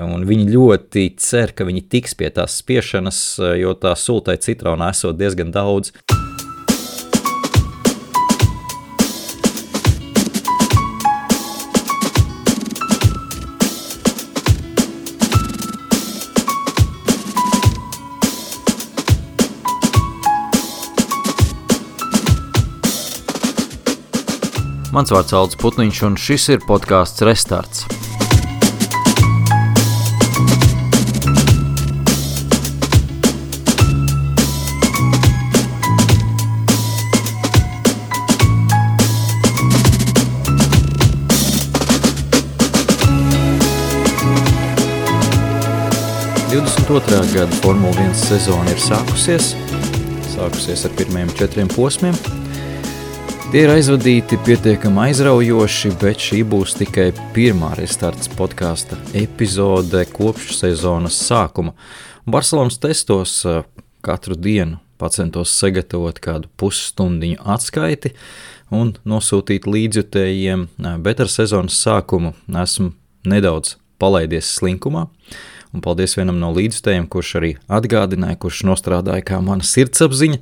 un viņi ļoti cer, ka viņi tiks pie tās spiešanas, jo tā sultai citrona esot diezgan daudz. Mans vārds Aldis Putniņš, un šis ir podcasts Restarts. Gada Formula 1 sezona ir sākusies ar pirmajiem 4 posmiem. Tie ir aizvadīti pietiekami aizraujoši, bet šī būs tikai pirmā Restarts podkāsta epizode kopš sezonas sākuma. Barcelonas testos katru dienu pacentos sagatavot kādu pusstundiņu atskaiti un nosūtīt līdzjutējiem, bet ar sezonas sākumu esmu nedaudz palaidies slinkumā. Un paldies vienam no līdzjutējiem, kurš arī atgādināja, kurš nostrādāja kā mana sirdsapziņa.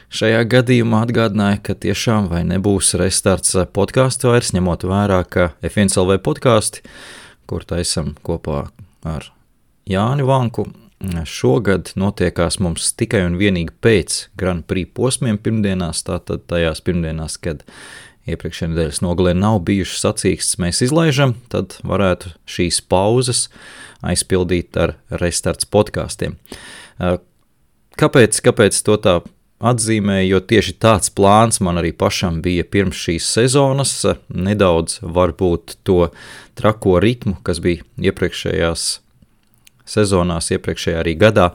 Šajā gadījumā atgādināja, ka tiešām vai nebūs Restarts podkāsts vairs, ņemot vērā, ka F1LV podkāsti, kur taisam kopā ar Jāni Vanku, šogad notiekās mums tikai un vienīgi pēc Grand Prix posmiem pirmdienās, tātad tajās pirmdienās, kad iepriekšējā nedēļas nogalē nav bijušas sacīkstes, mēs izlaižam, tad varētu šīs pauzes aizpildīt ar Restarts podkāstiem. Kāpēc to tā atzīmēju, jo tieši tāds plāns man arī pašam bija pirms šīs sezonas, nedaudz varbūt to trako ritmu, kas bija iepriekšējās sezonās, iepriekšējā arī gadā,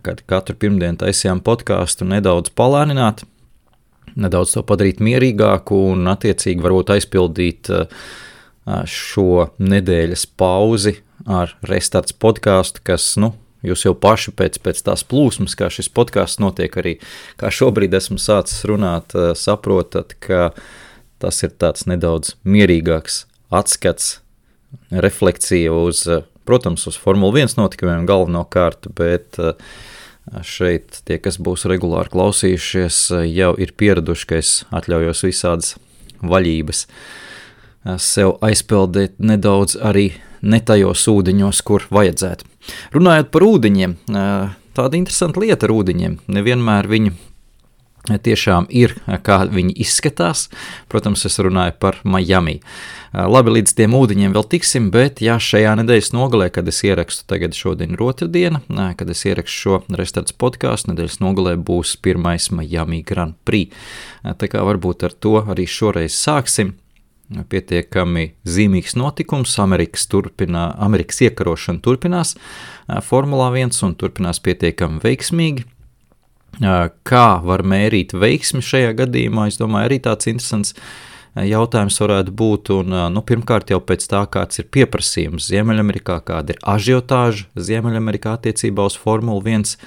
kad katru pirmdienu taisījām podkāstu, nedaudz palēnināt, nedaudz to padarīt mierīgāku un attiecīgi varbūt aizpildīt šo nedēļas pauzi ar Restarts podkāstu, kas, jūs jau paši pēc tās plūsmas, kā šis podkāsts notiek arī, kā šobrīd esmu sācis runāt, saprotat, ka tas ir tāds nedaudz mierīgāks atskats, refleksija uz, protams, uz Formula 1 notikumiem galvenokārt, bet šeit tie, kas būs regulāri klausījušies, jau ir pieraduši, ka es atļaujos visādas vaļības sev aizpeldēt nedaudz arī ne tajos ūdeņos, kur vajadzētu. Runājot par ūdeņiem, tāda interesanta lieta ar ūdeņiem. Nevienmēr viņi tiešām ir, kā viņi izskatās. Protams, es runāju par Miami. Labi, līdz tiem ūdeņiem vēl tiksim, bet šajā nedēļas nogalē, kad es ierakstu, tagad šodien ir otrdiena, kad es ierakstu šo Restarts podkāstu, nedēļas nogalē būs pirmais Miami Grand Prix. Tā kā varbūt ar to arī šoreiz sāksim. Pietiekami zīmīgs notikums, Amerikas iekarošana turpinās Formulā 1 un turpinās pietiekami veiksmīgi. Kā var mērīt veiksmi šajā gadījumā, es domāju, arī tāds interesants jautājums varētu būt, un pirmkārt jau pēc tā, kāds ir pieprasījums Ziemeļamerikā, kāda ir ažiotāža Ziemeļamerikā attiecībā uz Formulu 1,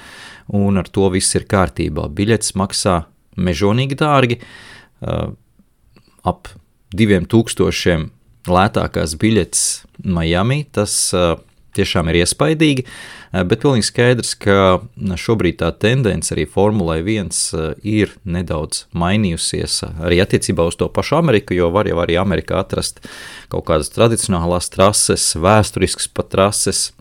un ar to viss ir kārtībā. Biļetes maksā mežonīgi dārgi, ap 2000 lētākās biļetes Miami, tas tiešām ir iespaidīgi, bet pilnīgi skaidrs, ka šobrīd tā tendence arī Formulai 1 ir nedaudz mainījusies arī attiecībā uz to pašu Ameriku, jo var jau arī Amerikā atrast kaut kādas tradicionālās trases, vēsturiskas pat trases,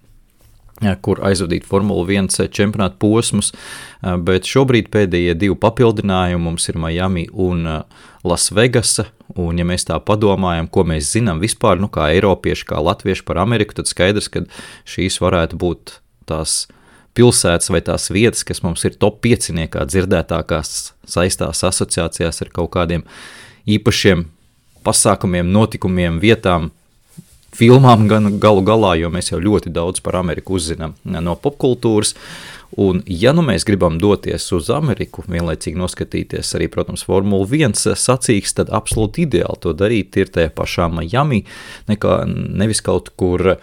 kur aizvadīt Formula 1 čempionātu posmus, bet šobrīd pēdējie 2 papildinājumi mums ir Miami un Las Vegasa, un ja mēs tā padomājam, ko mēs zinām vispār, kā eiropieši, kā latvieši par Ameriku, tad skaidrs, ka šīs varētu būt tās pilsētas vai tās vietas, kas mums ir top 5-niekā dzirdētākās saistās asociācijās ar kaut kādiem īpašiem pasākumiem, notikumiem, vietām, filmām gan galu galā, jo mēs jau ļoti daudz par Ameriku uzzinām no popkultūras, un ja mēs gribam doties uz Ameriku, vienlaicīgi noskatīties arī, protams, Formula 1 sacīks, tad absolūti ideāli to darīt ir tajā pašā Miami, nevis kaut kur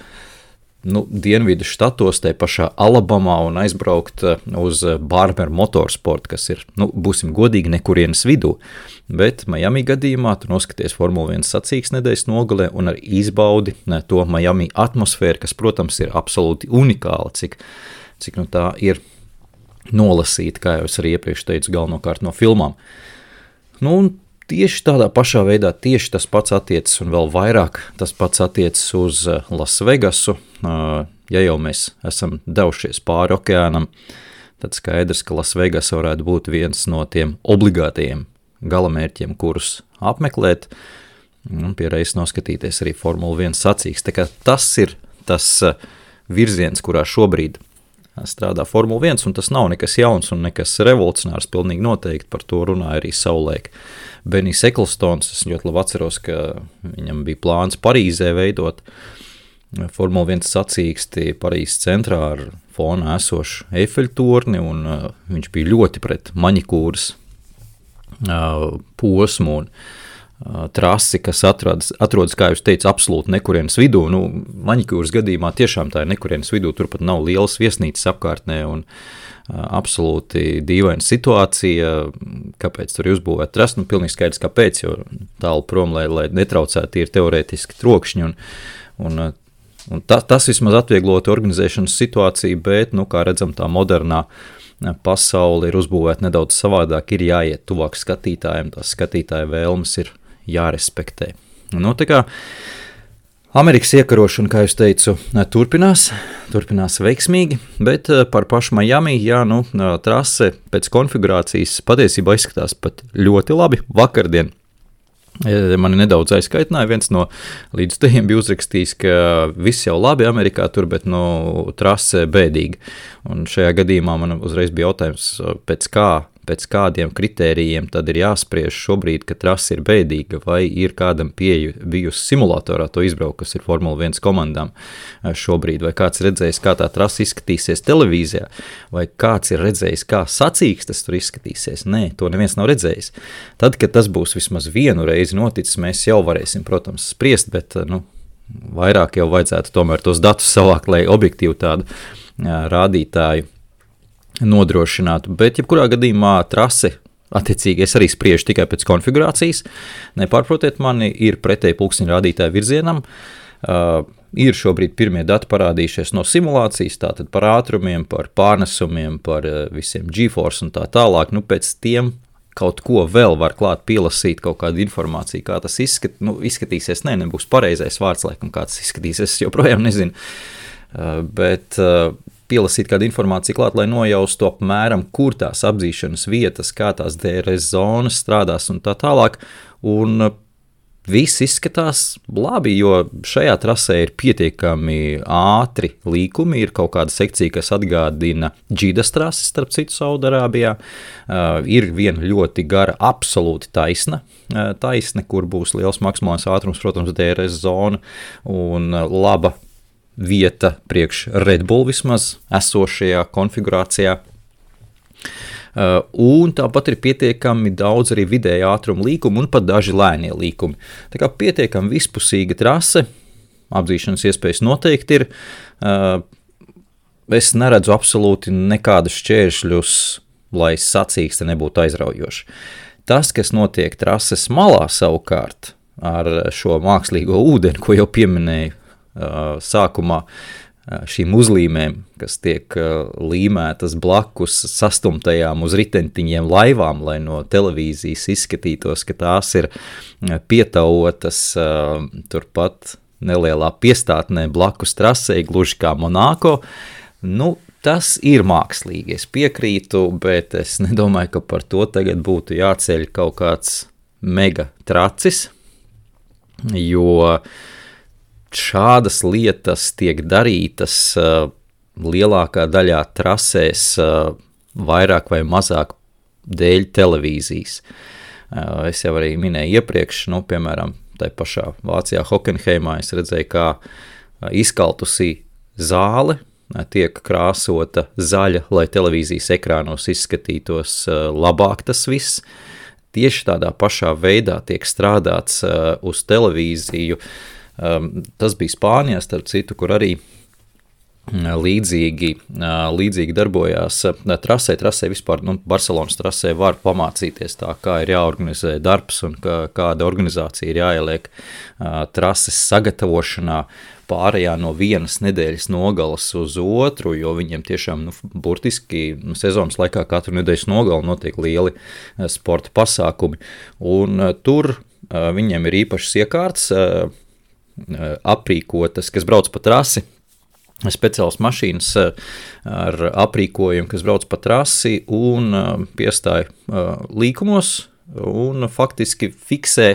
dienvidu štatos, te pašā Alabamā un aizbraukt uz Barber Motorsport, kas ir, būsim godīgi, nekurienes vidū. Bet Miami gadījumā tu noskaties Formula 1 sacīkstes nedēļas nogalē un arī izbaudi to Miami atmosfēru, kas, protams, ir absolūti unikāla, cik tā ir nolasīta, kā jau es arī iepriekš teicu, galvenokārt no filmām. Un tieši tādā pašā veidā tieši tas pats attiecas un vēl vairāk tas pats attiecas uz Las Vegasu. Ja jau mēs esam devušies pāri okeānam, tad skaidrs, ka Las Vegas varētu būt viens no tiem obligātajiem galamērķiem, kurus apmeklēt un pie reizes noskatīties arī Formula 1 sacīkstes. Tā kā tas ir tas virziens, kurā šobrīd strādā Formula 1, un tas nav nekas jauns un nekas revolucionārs, pilnīgi noteikti par to runāja arī savulaik Benijs Eklstons. Es ļoti labi atceros, ka viņam bija plāns Parīzē veidot Formula 1 sacīksti Parīzes centrā ar fonā esošu Eifeļtorni, un viņš bija ļoti pret maņikūras posmu un trasi, kas atrodas, kā jūs teicu, absolūti nekurienes vidū. Maņikūras gadījumā tiešām tā ir nekurienes vidū, tur pat nav lielas viesnīcas apkārtnē un absolūti dīvaina situācija, kāpēc tur ir uzbūvēta trasa. Pilnīgi skaidrs, kāpēc, jo tālu prom, lai netraucētu ir teorētiski trokšņi un tas vismaz atvieglot organizēšanas situāciju, bet, kā redzam, tā modernā pasaule ir uzbūvēta nedaudz savādāk, ir jāiet tuvāk skatītājiem, tās skatītāja vēlmes ir jārespektē. Tā kā Amerikas iekarošana, kā jūs teicu, turpinās veiksmīgi, bet par pašu Miami, trase pēc konfigurācijas patiesībā izskatās pat ļoti labi. Vakardien mani nedaudz aizkaitināja, viens no līdzstājiem bija uzrakstījis, ka viss jau labi Amerikā tur, bet trase bēdīgi. Un šajā gadījumā man uzreiz bija jautājums, pēc kādiem kritērijiem tad ir jāspriež šobrīd, ka trase ir bēdīga, vai ir kādam pieeja bijusi simulatorā to izbraukt, kas ir Formula 1 komandām šobrīd, vai kāds redzējis, kā tā trase izskatīsies televīzijā, vai kāds ir redzējis, kā sacīkstes tur izskatīsies. Nē, to neviens nav redzējis. Tad, kad tas būs vismaz vienu reizi noticis, mēs jau varēsim, protams, spriest, bet vairāk jau vajadzētu tomēr tos datus savākt, lai objektīvu tādu rādītāju nodrošinātu, bet jebkurā gadījumā trase, attiecīgi es arī spriežu tikai pēc konfigurācijas, nepārprotiet mani, ir pretēji pulksteņa rādītāju virzienam, ir šobrīd pirmie dati parādījušies no simulācijas, tātad par ātrumiem, par pārnesumiem, par visiem G-force un tā tālāk, pēc tiem kaut ko vēl var klāt pielasīt, kaut kādu informāciju, kā tas izskatīsies, nebūs pareizais vārds, laikam, kā tas izskatīsies, es joprojām nezinu, bet pielasīt kādu informāciju klāt, lai nojaustu apmēram, kur tās apdzīšanas vietas, kā tās DRS zonas strādās un tā tālāk, un viss izskatās labi, jo šajā trasē ir pietiekami ātri līkumi, ir kaut kāda sekcija, kas atgādina Džidas trasi, starp citu Saudarābijā, ir viena ļoti gara, absolūti taisna, kur būs liels maksimālais ātrums, protams, DRS zona un laba vieta priekš Red Bull vismaz esošajā konfigurācijā. Un tāpat ir pietiekami daudz arī vidēja ātruma līkumu un pat daži lēnie līkumi. Tā kā pietiekami vispusīga trase, apdzīšanas iespējas noteikti ir. Es neredzu absolūti nekādus šķēršļus, lai sacīkste nebūtu aizraujoša. Tas, kas notiek trases malā savukārt ar šo mākslīgo ūdeni, ko jau pieminēju, sākumā šīm uzlīmēm, kas tiek līmētas blakus sastumtajām uz ritentiņiem laivām, lai no televīzijas izskatītos, ka tās ir pietauotas turpat nelielā piestātnē blakus trasei, gluži kā Monako. Tas ir mākslīgi, es piekrītu, bet es nedomāju, ka par to tagad būtu jāceļ kaut kāds mega tracis, jo šādas lietas tiek darītas lielākā daļā trasēs vairāk vai mazāk dēļ televīzijas. Es jau arī minēju iepriekš, piemēram, tai pašā Vācijā Hockenheimā es redzēju, kā izkaltusī zāle tiek krāsota zaļa, lai televīzijas ekrānos izskatītos labāk tas viss. Tieši tādā pašā veidā tiek strādāts uz televīziju. Tas bija Spānijā, starp citu, kur arī līdzīgi darbojās trasē vispār, Barcelonas trasē var pamācīties tā, kā ir jāorganizē darbs un kāda organizācija ir jāieliek trases sagatavošanā, pārējā no vienas nedēļas nogalas uz otru, jo viņiem tiešām burtiski sezonas laikā katru nedēļas nogali notiek lieli sporta pasākumi, un tur viņiem ir īpašas iekārtas aprīkotas, kas brauc pa trasi, speciāls mašīnas ar aprīkojumu, kas brauc pa trasi un piestāja līkumos un faktiski fiksē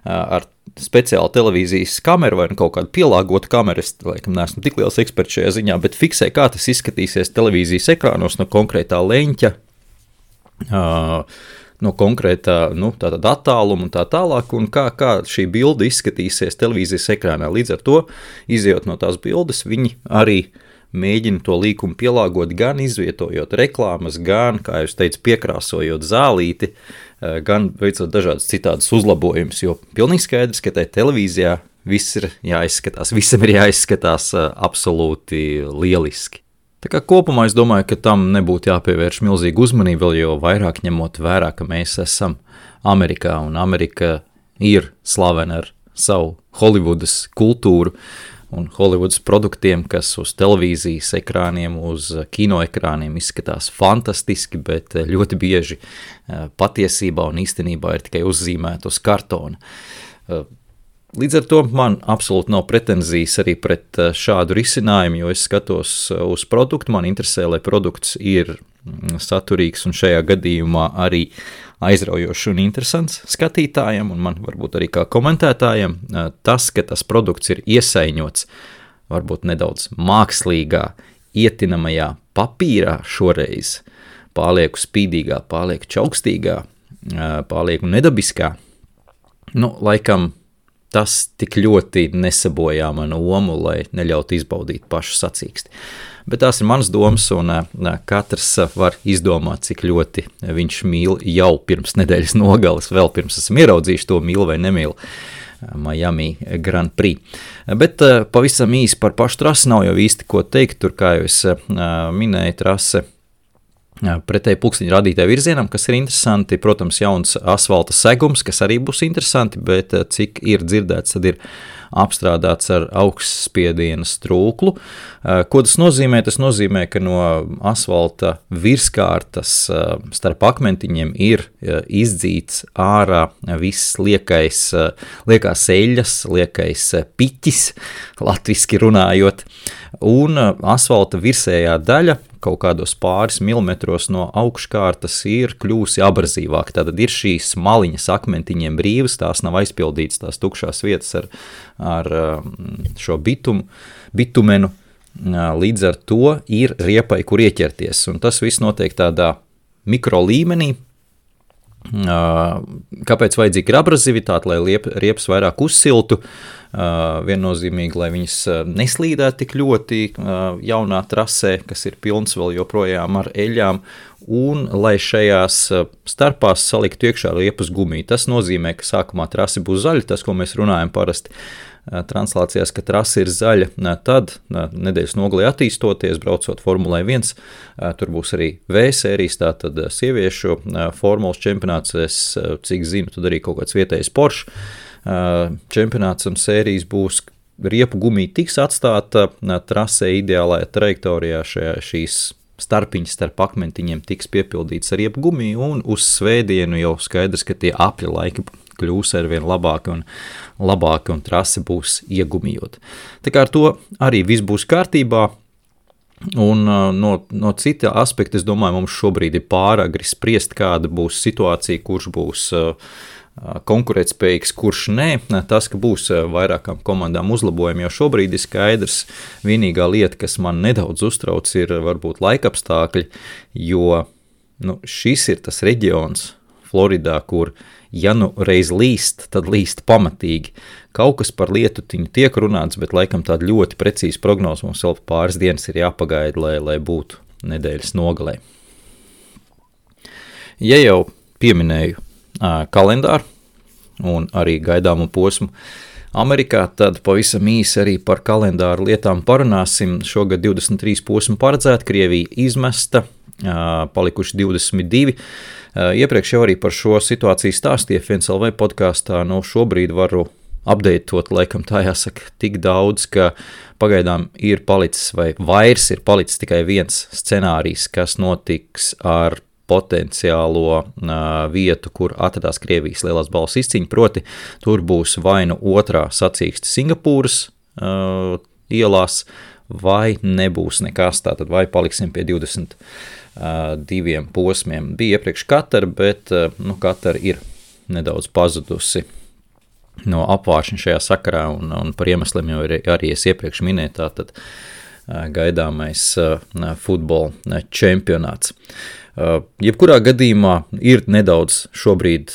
ar speciālu televīzijas kameru vai kaut kādu pielāgotu kameru. Es laikam neesmu tik liels eksperts šajā ziņā, bet fiksē, kā tas izskatīsies televīzijas ekrānos no konkrētā leņķa, no konkrētā tātad attāluma un tā tālāk, un kā šī bilde izskatīsies televīzijas ekrānā. Līdz ar to, izejot no tās bildes, viņi arī mēģina to līkumu pielāgot, gan izvietojot reklāmas, gan, kā jūs teicu, piekrāsojot zālīti, gan veicot dažādas citādas uzlabojumus, jo pilnīgi skaidrs, ka tai televīzijā viss ir jāizskatās, visam ir jāizskatās absolūti lieliski. Tā kā kopumā es domāju, ka tam nebūtu jāpievērš milzīga uzmanība, vēl jo vairāk ņemot vērā, ka mēs esam Amerikā, un Amerika ir slavena ar savu Holivudas kultūru un Holivudas produktiem, kas uz televīzijas ekrāniem, uz kinoekrāniem izskatās fantastiski, bet ļoti bieži patiesībā un īstenībā ir tikai uzzīmēti uz kartona. Līdz ar to man absolūti nav pretenzijas arī pret šādu risinājumu, jo es skatos uz produktu, man interesē, lai produkts ir saturīgs un šajā gadījumā arī aizraujošs un interesants skatītājiem, un man varbūt arī kā komentētājiem tas, ka tas produkts ir iesaiņots varbūt nedaudz mākslīgā, ietinamajā papīrā šoreiz, pārlieku spīdīgā, pārlieku čaukstīgā, pārlieku nedabiskā, laikam tas tik ļoti nesabojā manu omu, lai neļautu izbaudīt pašu sacīksti. Bet tās ir manas domas, un katrs var izdomāt, cik ļoti viņš mīl jau pirms nedēļas nogales, vēl pirms esam ieraudzījuši to mīl vai nemīl Miami Grand Prix. Bet pavisam īsi par pašu trasi nav jau īsti ko teikt, tur, kā jau es minēju, trase pretēji pulksteņa rādītāju virzienam, kas ir interesanti, protams, jauns asfalta segums, kas arī būs interesanti, bet cik ir dzirdēts, tad ir apstrādāts ar augstspiediena strūklu. Ko tas nozīmē? Tas nozīmē, ka no asfalta virskārtas starp akmentiņiem ir izdzīts ārā viss liekās eļas, liekais piķis, latviski runājot, un asfalta virsējā daļa kaut kādos pāris milimetros no augškārtas ir kļūsi abrazīvāk. Tātad ir šīs maliņas akmentiņiem brīvas, tās nav aizpildītas, tās tukšās vietas ar šo bitumenu. Līdz ar to ir riepai, kur ieķerties. Un tas viss notiek tādā mikro līmenī. Kāpēc vajadzīga ir abrazivitāte, lai riepas vairāk uzsiltu, viennozīmīgi, lai viņas neslīdētu tik ļoti jaunā trasē, kas ir pilns vēl joprojām ar eļām, un lai šajās starpās saliktu iekšā riepas gumiju. Tas nozīmē, ka sākumā trase būs zaļa, tas, ko mēs runājam parasti translācijās, ka trase ir zaļa, tad nedēļas nogalē attīstoties, braucot Formulē 1, tur būs arī V sērijas, tātad sieviešu formulas čempionāts, es cik zinu, tad arī kaut kāds vietējais Porsche čempionāts un sērijas būs, riepu gumija tiks atstāta trasē ideālajā trajektorijā, šīs starpiņas starp akmentiņiem tiks piepildīts ar riepu gumiju, un uz svētdienu jau skaidrs, ka tie apļa laiki kļūs arvien labāki un trase būs iegumijot. Tā kā ar to arī viss būs kārtībā, un no cita aspekta, es domāju, mums šobrīd ir pāragri spriest, kāda būs situācija, kurš būs konkurētspējīgs, kurš nē. Tas, ka būs vairākām komandām uzlabojumi, jo šobrīd ir skaidrs, vienīgā lieta, kas man nedaudz uztrauc, ir varbūt laikapstākļi, jo šis ir tas reģions Floridā, kur ja reiz līst, tad līst pamatīgi. Kaut kas par lietutiņu tiek runāts, bet laikam tāda ļoti precīza prognoze mums vēl pāris dienas ir jāpagaida, lai būtu nedēļas nogalē. Ja jau pieminēju kalendāru un arī gaidāmu posmu Amerikā, tad pavisam īsi arī par kalendāru lietām parunāsim. Šogad 23 posmi paredzēti, Krievija izmesta, palikuši 22. Iepriekš jau arī par šo situāciju stāstīja FNCLV podkāstā. Šobrīd varu updateot, laikam tā jāsaka, tik daudz, ka pagaidām ir palicis vai vairs ir palicis tikai viens scenārijs, kas notiks ar potenciālo vietu, kur atradās Krievijas lielās balvas izcīņa, proti tur būs vai nu otrā sacīkste Singapūras ielās, vai nebūs nekas, tātad vai paliksim pie 22 posmiem. Bija iepriekš Katara, bet Katara ir nedaudz pazudusi no apvāršņa šajā sakarā, un par iemesliem jau arī es iepriekš minēju, tātad gaidāmais futbola čempionāts. Jebkurā gadījumā ir nedaudz šobrīd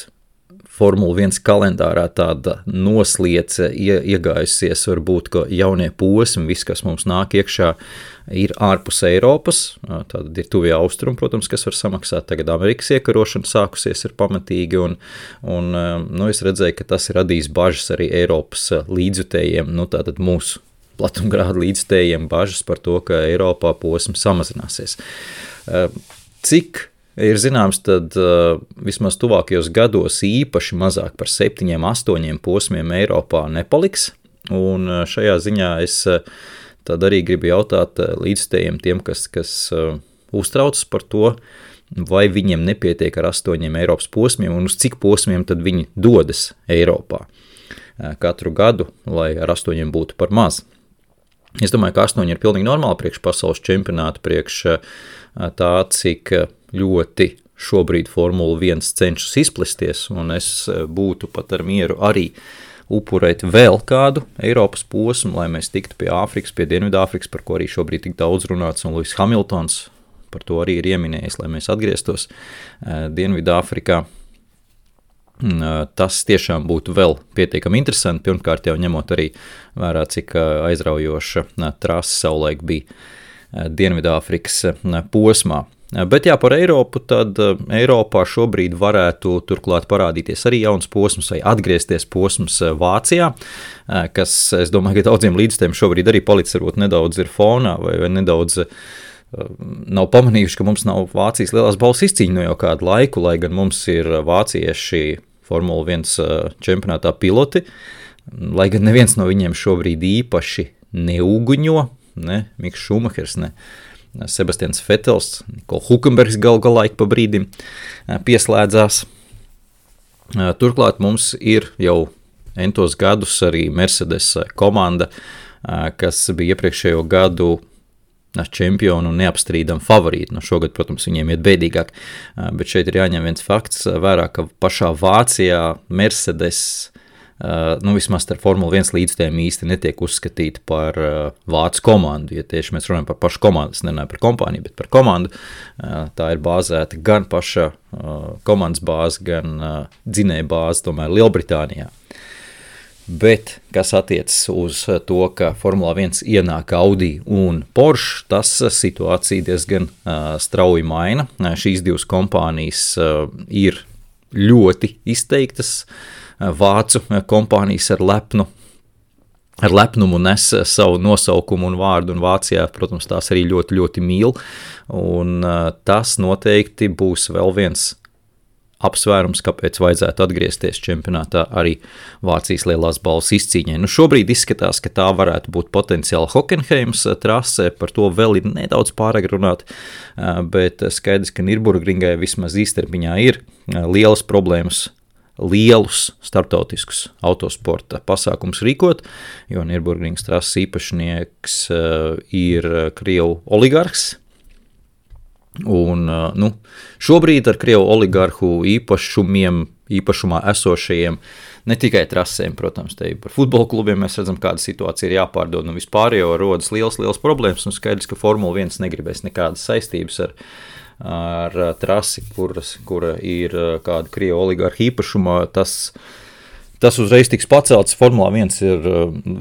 Formula 1 kalendārā tāda nosliece iegājusies, varbūt, ka jaunie posmi, viss, kas mums nāk iekšā, ir ārpus Eiropas, tātad ir tuvie austrumi, protams, kas var samaksāt, tagad Amerikas iekarošana sākusies ir pamatīgi, un es redzēju, ka tas ir radījis bažas arī Eiropas līdzjutējiem, tātad mūsu platumgrādu līdzjutējiem bažas par to, ka Eiropā posmi samazināsies. Cik ir zināms, tad vismaz tuvākajos gados īpaši mazāk par 7-8 posmiem Eiropā nepaliks, un šajā ziņā es tad arī gribu jautāt līdzstējiem tiem, kas uztraucas par to, vai viņiem nepietiek ar 8 Eiropas posmiem, un uz cik posmiem tad viņi dodas Eiropā katru gadu, lai ar 8 būtu par maz. Es domāju, ka 8 ir pilnīgi normāli priekš pasaules čempionāta, priekš tā, cik ļoti šobrīd Formula 1 cenšas izplesties, un es būtu pat ar mieru arī upurēt vēl kādu Eiropas posmu, lai mēs tiktu pie Āfrikas, pie Dienvidāfrikas, par ko arī šobrīd tik daudz runāts, un Lewis Hamiltons par to arī ir ieminējis, lai mēs atgrieztos Dienvidāfrikā. Tas tiešām būtu vēl pietiekami interesanti, pirmkārt jau ņemot arī vērā, cik aizraujoša trase savulaik bija Dienvidāfrikas posmā. Bet jā, par Eiropu, tad Eiropā šobrīd varētu turklāt parādīties arī jauns posms vai atgriezties posms Vācijā, kas, es domāju, ka daudziem līdzstiem šobrīd arī palicis varbūt nedaudz ir fonā vai nedaudz nav pamanījuši, ka mums nav Vācijas lielās balvas izcīņa no jau kādu laiku, lai gan mums ir vācieši Formula 1 čempionātā piloti, lai gan neviens no viņiem šobrīd īpaši neuguņo, ne Miks Šumahers, ne Sebastians Vetels, Niko Hulkenbergs galā ik pa brīdim pieslēdzās. Turklāt mums ir jau entos gadus arī Mercedes komanda, kas bija iepriekšējo gadu čempionu un neapstrīdam favorīti. Šogad, protams, viņiem iet bēdīgāk, bet šeit ir jāņem viens fakts vērā, ka pašā Vācijā Mercedes, vismaz ar Formula 1 līdzstējiem īsti netiek uzskatīti par vācu komandu. Ja tieši mēs runājam par pašu komandu, es nerunāju par kompāniju, bet par komandu, tā ir bāzēta gan paša komandas bāze, gan dzinēja bāze, tomēr Lielbritānijā. Bet, kas attiecas uz to, ka Formulā 1 ienāk Audi un Porsche, tas situācija diezgan strauji maina. Šīs divas kompānijas ir ļoti izteiktas. Vācu kompānijas ar lepnumu nes savu nosaukumu un vārdu, un Vācijā, protams, tās arī ļoti, ļoti mīl. Un tas noteikti būs vēl viens apsvērums, kāpēc vajadzētu atgriezties čempionātā arī Vācijas lielās balvas izcīņai. Šobrīd izskatās, ka tā varētu būt potenciāli Hockenheims trase, par to vēl ir nedaudz pārāk runāt, bet skaidrs, ka Nürburgringai vismaz īstermiņā ir lielas problēmas lielus starptautiskus autosporta pasākumus rīkot, jo Nürburgringas trases īpašnieks ir Krievu oligarhs. Un, šobrīd ar Krievu oligarhu īpašumā esošajiem, ne tikai trasēm, protams, te par futbola klubiem mēs redzam, kāda situācija ir jāpārdod, un vispār jau rodas liels problēmas, un skaidrs, ka Formula 1 negribēs nekādas saistības ar trasi, kura ir kāda Krievu oligarhu īpašumā, tas uzreiz tiks pacelts. Formulā 1 ir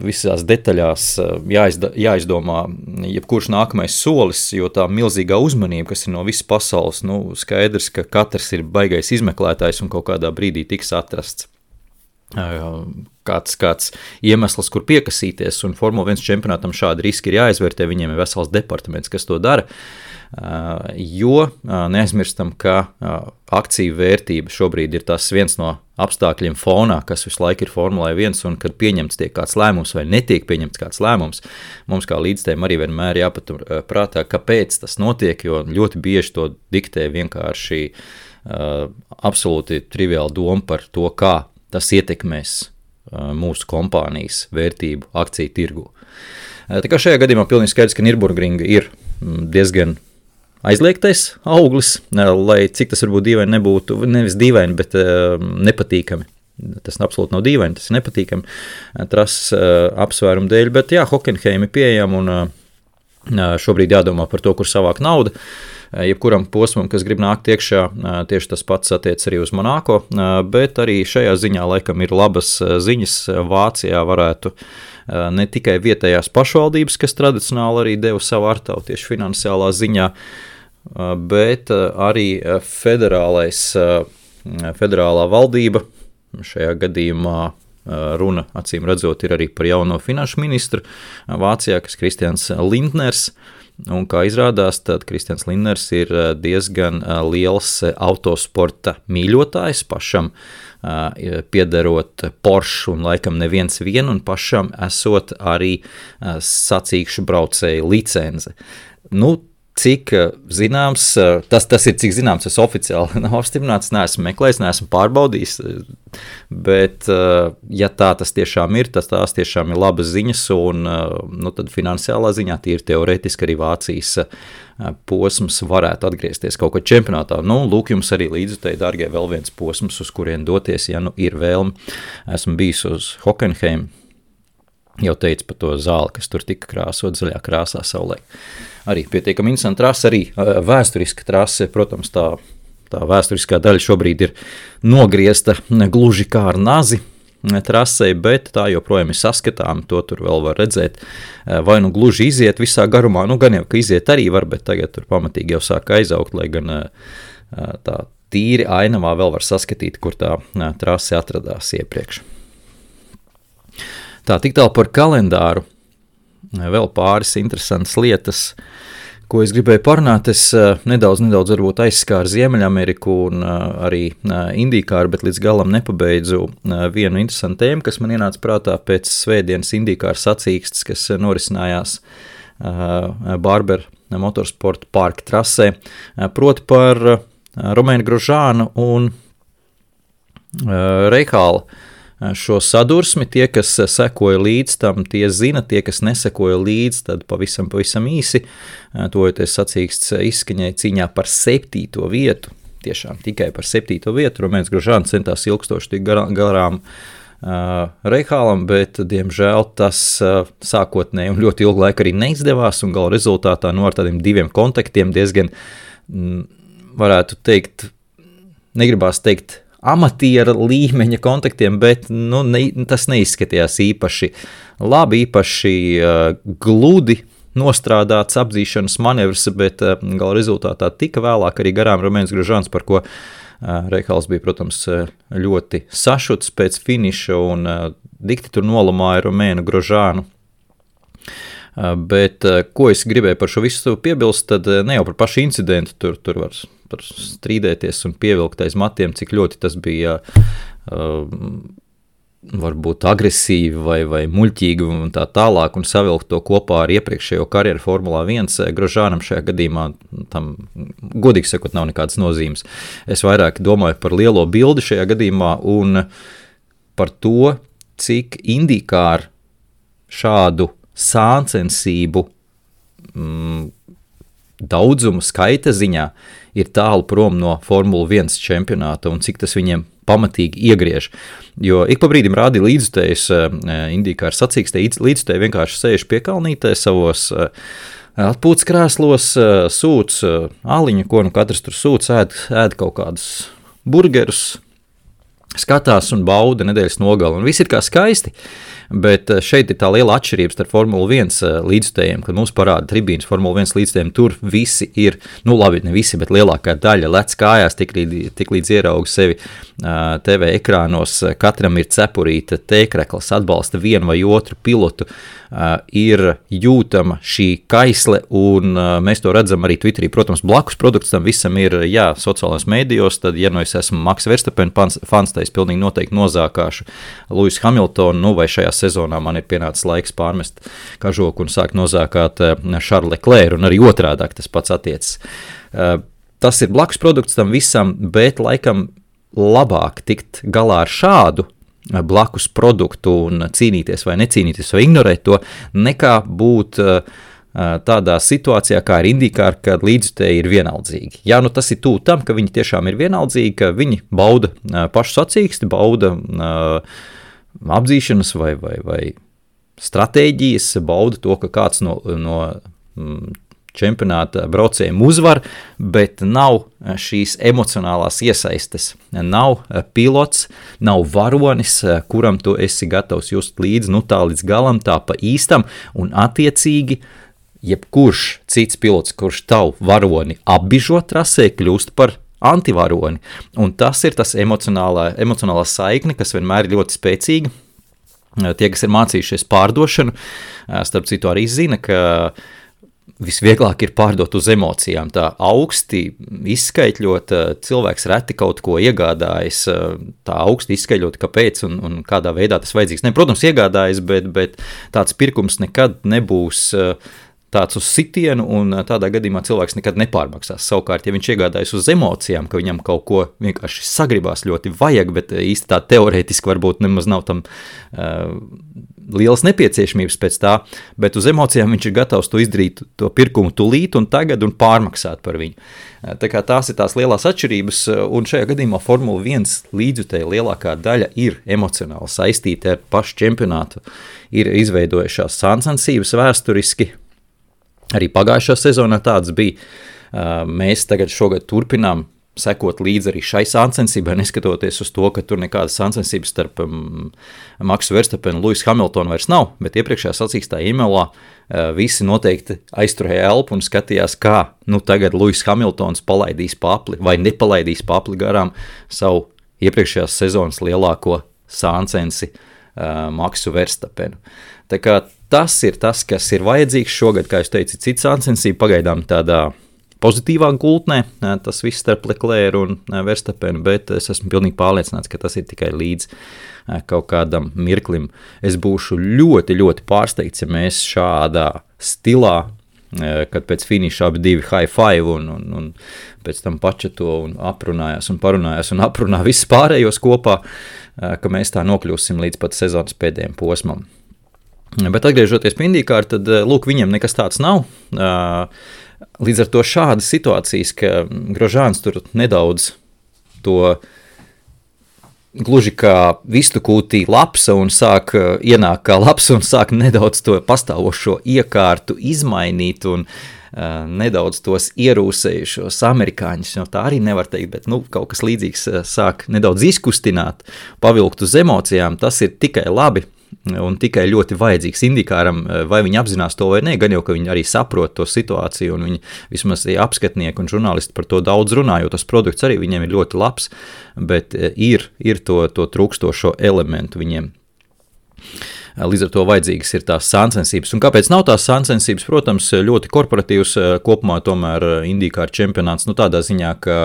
visās detaļās jāizdomā jebkurš nākamais solis, jo tā milzīgā uzmanība, kas ir no visas pasaules, skaidrs, ka katrs ir baigais izmeklētājs un kaut kādā brīdī tiks atrasts. kāds iemesls, kur piekasīties, un Formula 1 čempionātam šādi riski ir jāizvērtē, viņiem ir vesels departaments, kas to dara, jo neaizmirstam, ka akciju vērtība šobrīd ir tas viens no apstākļiem fonā, kas visu laiku ir Formulai 1, un kad pieņemts tiek kāds lēmums vai netiek pieņemts kāds lēmums, mums kā līdzstājiem arī vienmēr jāpatur prātā, kāpēc tas notiek, jo ļoti bieži to diktē vienkārši absolūti triviāla doma par to, kā tas ietekmēs mūsu kompānijas vērtību akciju tirgu. Tā kā šajā gadījumā pilnīgi skaidrs, ka Nürburgringa ir diezgan aizliegtais auglis, lai cik tas varbūt dīvaini nebūtu, nevis dīvaini, bet nepatīkami. Tas absolūti nav dīvaini, tas ir nepatīkami trases apsvērumu dēļ, bet jā, Hockenheim ir pieejama un šobrīd jādomā par to, kur savāk nauda. Jebkuram posmam, kas grib nākt iekšā, tieši tas pats attiec arī uz Monako, bet arī šajā ziņā laikam ir labas ziņas. Vācijā varētu ne tikai vietējās pašvaldības, kas tradicionāli arī deva savu artavu tieši finansiālā ziņā, bet arī federālā valdība, šajā gadījumā runa, acīm redzot, ir arī par jauno finanšu ministru Vācijā, kas Kristians Lindners. Un kā izrādās, tad Kristians Lindners ir diezgan liels autosporta mīļotājs, pašam piederot Porsche un laikam neviens vien, un pašam esot arī sacīkšu braucēju licence. Cik zināms, tas ir cik zināms, tas oficiāli nav apstiprināts, neesmu meklējis, neesmu pārbaudījis, bet ja tā tas tiešām ir, tās tiešām ir labas ziņas, un tad finansiālā ziņā tīri teorētiski arī Vācijas posms varētu atgriezties kaut ko čempionātā. Lūk jums arī līdzutēji, dārgie, vēl viens posms, uz kurien doties, ja ir vēlme. Esmu bijis uz Hockenheim, jau teicu par to zāli, kas tur tika krāsot zaļā krāsā saulē. Arī pietiekami interesanta trase, arī vēsturiska trase, protams, tā vēsturiskā daļa šobrīd ir nogriezta gluži kā ar nazi trasei, bet tā joprojām ir saskatām, to tur vēl var redzēt, vai gluži iziet visā garumā, gan jau, ka iziet arī var, bet tagad tur pamatīgi jau sāk aizaugt, lai gan tā tīri ainavā vēl var saskatīt, kur tā trase atradās iepriekš. Tā, tik tālu par kalendāru. Vēl pāris interesantas lietas, ko es gribēju parunāt. Es nedaudz varbūt aizskāru Ziemeļameriku un arī IndyCar, bet līdz galam nepabeidzu vienu interesantu tēmu, kas man ienāca prātā pēc svētdienas IndyCar sacīkstes, kas norisinājās Barber Motorsport parka trasē, proti par Romainu Grosjeanu un Reihāla šo sadursmi. Tie, kas sekoja līdz tam, tie zina, tie, kas nesekoja līdz, tad pavisam īsi, tojoties sacīksts izskaņai cīņā par 7. vietu, tiešām tikai par 7. vietu. Romains Grosjeans centās ilgstoši tik garām Reihālam, bet, diemžēl, tas sākotnēji un ļoti ilgu laiku arī neizdevās, un gala rezultātā ar tādiem 2 kontaktiem diezgan, varētu teikt, negribās teikt, amatiera līmeņa kontaktiem, bet tas neizskatījās īpaši labi, īpaši gludi nostrādāts apdzīšanas manevrs, bet gala rezultātā tika vēlāk arī garām Romains Grosjeans, par ko Reihāls bija, protams, ļoti sašuts pēc finiša un dikti tur nolamāja Romainu Grosjeanu. Bet ko es gribēju par šo visu piebilst, tad ne jau par pašu incidentu, tur var strīdēties un pievilkt aiz matiem, cik ļoti tas bija varbūt agresīvi vai muļķīgi un tā tālāk, un savilkt to kopā ar iepriekšējo karjeru Formulā 1. Grosjeanam šajā gadījumā tam, godīgi sakot, nav nekādas nozīmes. Es vairāk domāju par lielo bildi šajā gadījumā un par to, cik IndyCar šādu sāncensību daudzumu skaita ziņā ir tālu prom no Formula 1 čempionāta un cik tas viņiem pamatīgi iegriež. Jo ik pa brīdim rādi līdzutējus IndyCar sacīkstē, līdzutēji vienkārši sēž piekalnītē savos atpūtas krēslos, sūc aliņu, ko katrs tur sūc, ēd kaut kādus burgerus, skatās un bauda nedēļas nogali, un viss ir kā skaisti, bet šeit ir tā liela atšķirība starp Formula 1 līdzstējiem, kad mums parāda tribīnas Formula 1 līdzstējiem, tur visi ir, nu labi, ne visi, bet lielākā daļa lec kājās, tik līdz ierauga sevi TV ekrānos, katram ir cepurīta tēkrekls, atbalsta vienu vai otru pilotu, ir jūtama šī kaisle, un mēs to redzam arī Twitterī. Protams, blakus produkts tam visam ir, jā, sociālajos mēdījos, tad, ja nu es esmu Max Verstappen fans, tad es pilnīgi noteikti nozākāšu Lewis Hamiltonu, nu vai šajā sezonā man ir pienācis laiks pārmest kažoku un sākt nozākāt Charles Leclerc, un arī otrādāk tas pats attiecas. Tas ir blakus produkts tam visam, bet laikam labāk tikt galā ar šādu blakus produktu un cīnīties vai necīnīties vai ignorēt to, nekā būt tādā situācijā, kā ir IndyCar, kad līdzjutēji ir vienaldzīgi. Jā, nu tas ir tuvu tam, ka viņi tiešām ir vienaldzīgi, ka viņi bauda pašu sacīksti, bauda apdzīšanas vai stratēģijas, bauda to, ka kāds no čempionāta braucējiem uzvar, bet nav šīs emocionālās iesaistes. Nav pilots, nav varonis, kuram tu esi gatavs just līdz, nu tā līdz galam, tā pa īstam, un attiecīgi jebkurš cits pilots, kurš tavu varoni apbižo trasē, kļūst par antivaroni. Un tas ir tas emocionālā saikne, kas vienmēr ir ļoti spēcīga. Tie, kas ir mācījušies pārdošanu, starp citu arī zina, ka visvieglāk ir pārdot uz emocijām. Tā augsti izskaitļot, cilvēks reti kaut ko iegādājas, tā augsti izskaitļot, kāpēc un kādā veidā tas vajadzīgs. Ne, protams, iegādājas, bet tāds pirkums nekad nebūs tāds uz sitienu, un tādā gadījumā cilvēks nekad nepārmaksās. Savukārt, ja viņš iegādājas uz emocijām, ka viņam kaut ko vienkārši sagribās ļoti vajag, bet īsti tā teorētiski varbūt nemaz nav tam lielas nepieciešamības pēc tā, bet uz emocijām viņš ir gatavs to izdarīt, to pirkumu tulīt un tagad un pārmaksāt par viņu. Tā kā tās ir tās lielās atšķirības, un šajā gadījumā Formula 1 līdzjutēja lielākā daļa ir emocionāli saistīta ar pašu čempionātu, ir izveidojušās sāncensības vēsturiski. Arī pagājušā sezonā tāds bija. Mēs tagad šogad turpinām sekot līdzi arī šai sāncensībai, neskatoties uz to, ka tur nekādas sāncensības starp Maxu Verstappenu un Lewis Hamiltonu vairs nav, bet iepriekšējā sacīkstā Imelā visi noteikti aizturēja elpu un skatījās, kā nu tagad Lewis Hamiltons palaidīs papli vai nepalaidīs papli garām savu iepriekšējās sezonas lielāko sāncensi Maxu Verstappenu. Tā kā tas ir tas, kas ir vajadzīgs šogad, kā jūs teicat, cits sāncensība pagaidām tādā pozitīvā gultnē, tas viss starp Leclerc un Verstappenu, bet es esmu pilnīgi pārliecināts, ka tas ir tikai līdz kaut kādam mirklim. Es būšu ļoti, ļoti pārsteigts, ja mēs šādā stilā, kad pēc finiša abi divi high five un pēc tam pačeto un aprunājās un parunājās un aprunā visus pārējos kopā, ka mēs tā nokļūsim līdz pat sezonas pēdējiem posmam. Bet atgriežoties pie IndyCar, tad lūk, viņam nekas tāds nav. Līdz ar to šādas situācijas, ka Grožāns tur nedaudz to gluži kā vistu kūtī lapsa un sāk ienāk kā lapsa un sāk nedaudz to pastāvošo iekārtu izmainīt un nedaudz tos ierūsējušos amerikāņus, jo tā arī nevar teikt, bet kaut kas līdzīgs sāk nedaudz izkustināt, pavilkt uz emocijām, tas ir tikai labi. Un tikai ļoti vajadzīgs IndyCaram, vai viņi apzinās to vai ne, gan jau, ka viņi arī saprot to situāciju, un viņi vismaz apskatnieki un žurnālisti par to daudz runā, jo tas produkts arī viņiem ir ļoti labs, bet ir to trūkstošo elementu viņiem. Līdz ar to vajadzīgas ir tās sāncensības. Un kāpēc nav tās sāncensības? Protams, ļoti korporatīvs kopumā tomēr IndyCar čempionāts, tādā ziņā, ka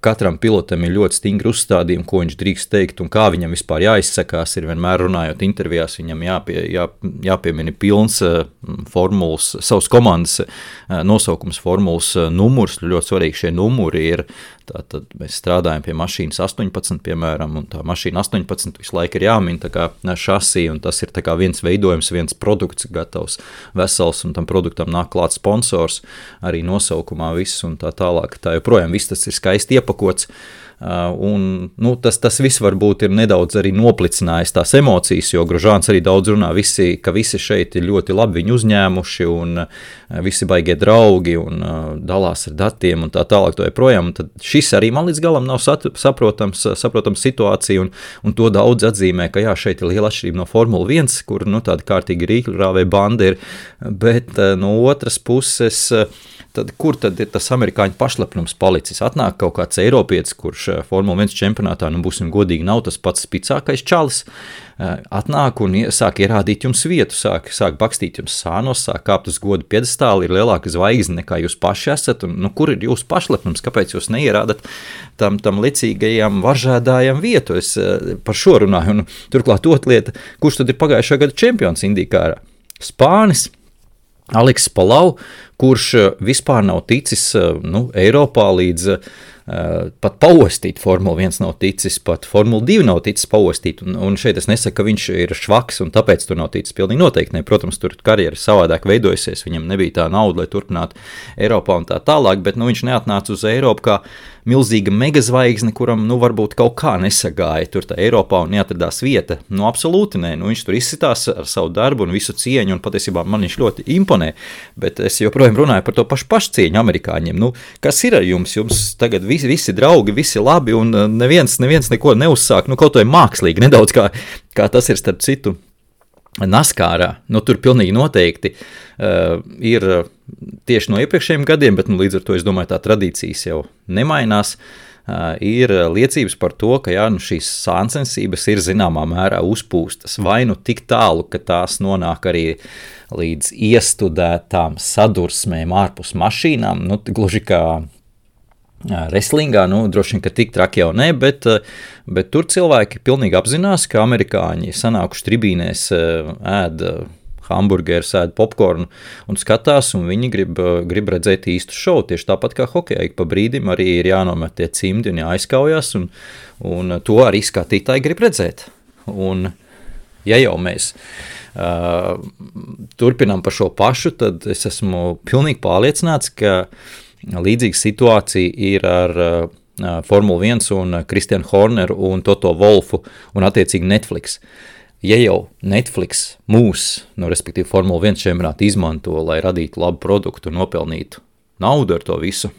katram pilotam ir ļoti stingri uzstādījumi, ko viņš drīkst teikt un kā viņam vispār jāizsakās. Ir vienmēr runājot intervijās, viņam jāpiemina pilns formulas, savas komandas nosaukums, formulas numurs. Ļoti svarīgi šie numuri ir. Tātad mēs strādājam pie mašīnas 18, piemēram, un tā mašīna 18 visu laiku ir jāmin tā kā šasī, un tas ir tā kā viens veidojums, viens produkts gatavs vesels, un tam produktam nāk klāt sponsors, arī nosaukumā viss un tā tālāk. Tā joprojām viss tas ir skaisti iepakots, Un, tas viss varbūt ir nedaudz arī noplicinājis tās emocijas, jo Grožāns arī daudz runā, ka visi šeit ir ļoti labi viņu uzņēmuši un visi baigie draugi un dalās ar datiem un tā tālāk to joprojām. Tad šis arī man līdz galam nav saprotams situācija un to daudz atzīmē, ka jā, šeit ir liela atšķirība no Formula 1, kur tāda kārtīga rīkļurāvē banda ir, bet no otras puses tad kur tad ir tas amerikāņu pašlepnums palicis? Atnāk kaut kāds eiropietis, kurš Formula 1 čempionātā, būsim godīgi, nav tas pats spicākais čalis, atnāk un sāk ierādīt jums vietu, sāk bakstīt jums sānos, sāk kāpt uz godu piedestāli, ir lielāka zvaigzne nekā jūs paši esat, un kur ir jūsu pašlepnums, kāpēc jūs neierādat tam licīgajam varžēdājam vietu? Es par šo runāju, un turklāt otra lieta, kurš tad ir pagājušā gada čempions Indīkārā? Spānis Aleksis Palau, kurš vispār nav ticis Eiropā līdz pat paostīt, Formula 1 nav ticis, pat Formula 2 nav ticis paostīt, un šeit es nesaku, ka viņš ir švaks un tāpēc tur nav ticis, pilnīgi noteikti ne, protams, tur karjera savādāk veidojusies, viņam nebija tā nauda, lai turpinātu Eiropā un tā tālāk, bet viņš neatnāca uz Eiropu kā milzīga megazvaigzne, kuram varbūt kaut kā nesagāja tur tā Eiropā un neatradās vieta, absolūti nē, viņš tur izsitās ar savu darbu un visu cieņu, un patiesībā man viņš ļoti imponē, bet es joprojām runāju par to pašcieņu amerikāņiem, kas ir ar jums tagad visi draugi, visi labi, un neviens neko neuzsāk, kaut vai mākslīgi, nedaudz kā tas ir starp citu Naskārā, tur pilnīgi noteikti ir tieši no iepriekšējiem gadiem, bet līdz ar to es domāju, tā tradīcijas jau nemainās, ir liecības par to, ka šīs sāncensības ir zināmā mērā uzpūstas, vai tik tālu, ka tās nonāk arī līdz iestudētām sadursmēm ārpus mašīnām, gluži kā Wrestlingā, droši vien, ka tik traki jau ne, bet tur cilvēki pilnīgi apzinās, ka amerikāņi sanākuši tribīnēs ēd hamburgerus, ēd popkornu un skatās, un viņi grib redzēt īstu šovu, tieši tāpat kā hokejā, pa brīdim arī ir jānomet tie cimdi un jāizkaujās, un to arī skatītāji grib redzēt. Un ja jau mēs turpinām par šo pašu, tad es esmu pilnīgi pārliecināts, ka līdzīga situācija ir ar Formula 1 un Kristianu Horneru un Toto Wolfu un attiecīgi Netflix. Ja jau Netflix respektīvi Formula 1 čempionātu izmanto, lai radītu labu produktu un nopelnītu naudu ar to visu,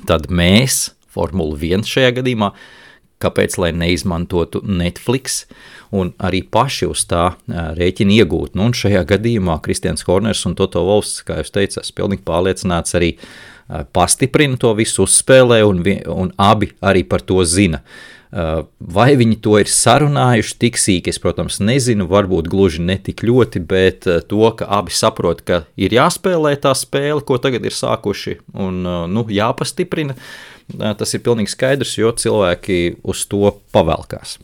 tad mēs, Formula 1 šajā gadījumā, kāpēc lai neizmantotu Netflix un arī paši uz tā rēķina iegūt. Un šajā gadījumā Kristians Horners un Toto Wolfs, kā jūs teicat, pilnīgi pārliecināts arī pastiprina to visu, uzspēlē un abi arī par to zina. Vai viņi to ir sarunājuši tik sīki, es, protams, nezinu, varbūt gluži ne tik ļoti, bet to, ka abi saprot, ka ir jāspēlē tā spēle, ko tagad ir sākuši, un jāpastiprina, tas ir pilnīgi skaidrs, jo cilvēki uz to pavelkās.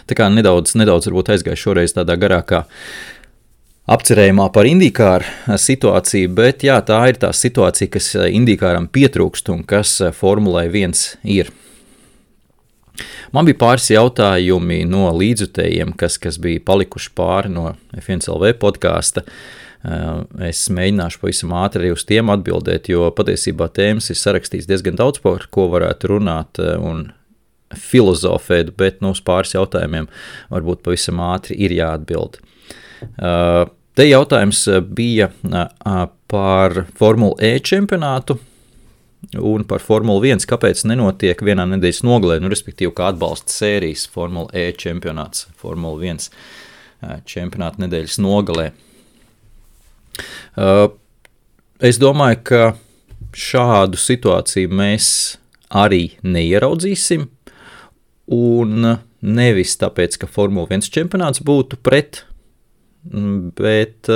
Tā kā nedaudz varbūt aizgāju šoreiz tādā garākā apcerējumā par Indīkāru situāciju, bet jā, tā ir tā situācija, kas Indīkāram pietrūkst un kas Formulai 1 ir. Man bija pāris jautājumi no līdzjutējiem, kas bija palikuši pāri no F1LV podkāsta. Es mēģināšu pavisam ātri arī uz tiem atbildēt, jo patiesībā tēmas ir sarakstīts diezgan daudz, par ko varētu runāt un filozofēt, bet uz pāris jautājumiem varbūt pavisam ātri ir jāatbild. Te jautājums bija par Formula E čempionātu un par Formula 1, kāpēc nenotiek vienā nedēļas nogalē, respektīvi kā atbalsta sērijas Formula E čempionāts, Formula 1 čempionāta nedēļas nogalē. Es domāju, ka šādu situāciju mēs arī neieraudzīsim, un nevis tāpēc, ka Formula 1 čempionāts būtu pret, bet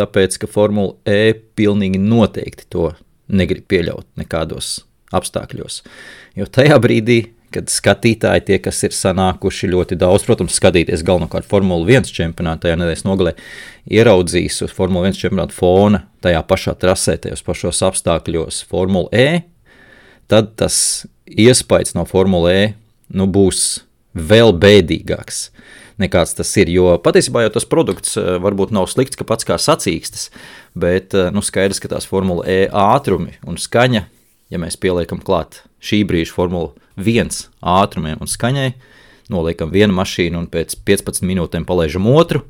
tāpēc, ka Formula E pilnīgi noteikti to negrib pieļaut nekādos apstākļos. Jo tajā brīdī, kad skatītāji tie, kas ir sanākuši ļoti daudz, protams, skatīties galvenokārt Formula 1 čempionātā, tajā nedēļas nogalē, ieraudzīs uz Formula 1 čempionāta fona tajā pašā trasē, tajos pašos apstākļos Formula E, tad tas iespējas no Formula E būs vēl bēdīgāks nekāds tas ir, jo patiesībā jau tas produkts varbūt nav slikts, ka pats kā sacīkstas, bet skaidrs, ka tās Formula E ātrumi un skaņa, ja mēs pieliekam klāt šī brīža Formula 1 ātrumiem un skaņai, noliekam vienu mašīnu un pēc 15 minūtēm palaižam otru.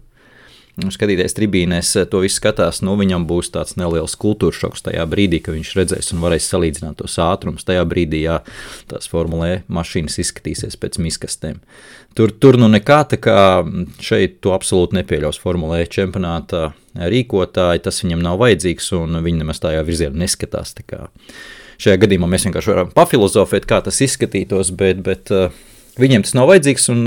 Skatīties tribīnēs, to visu skatās, viņam būs tāds neliels kultūras šoks tajā brīdī, ka viņš redzēs un varēs salīdzināt tos ātrumus. Tajā brīdī, jā, tās Formula E mašīnas izskatīsies pēc miskastēm. Tur nekā, tā kā šeit to absolūti nepieļaus Formula E čempionātā rīkotāji, tas viņam nav vajadzīgs un viņi nemaz tajā virzienā neskatās. Tā kā šajā gadījumā mēs vienkārši varam pafilozofēt, kā tas izskatītos, bet viņiem tas nav vajadzīgs, un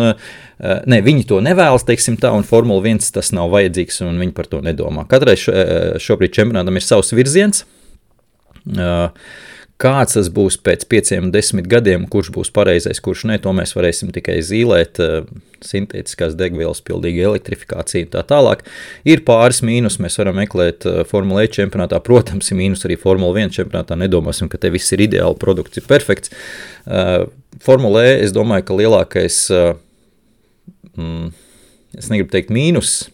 viņi to nevēlas, teiksim tā, un Formula 1 tas nav vajadzīgs, un viņi par to nedomā. Katrai šobrīd čempionātam ir savs virziens. Kāds tas būs pēc 5-10 gadiem, kurš būs pareizais, kurš ne, to mēs varēsim tikai zīlēt, sintētiskās degvielas, pilnīga elektrifikācija un tā tālāk. Ir pāris mīnus, mēs varam meklēt Formula E čempionātā, protams, ir mīnus arī Formula 1 čempionātā, nedomāsim, ka te viss ir ideāli, produkts ir perfekts. Formula E, es domāju, ka lielākais, es negribu teikt mīnus,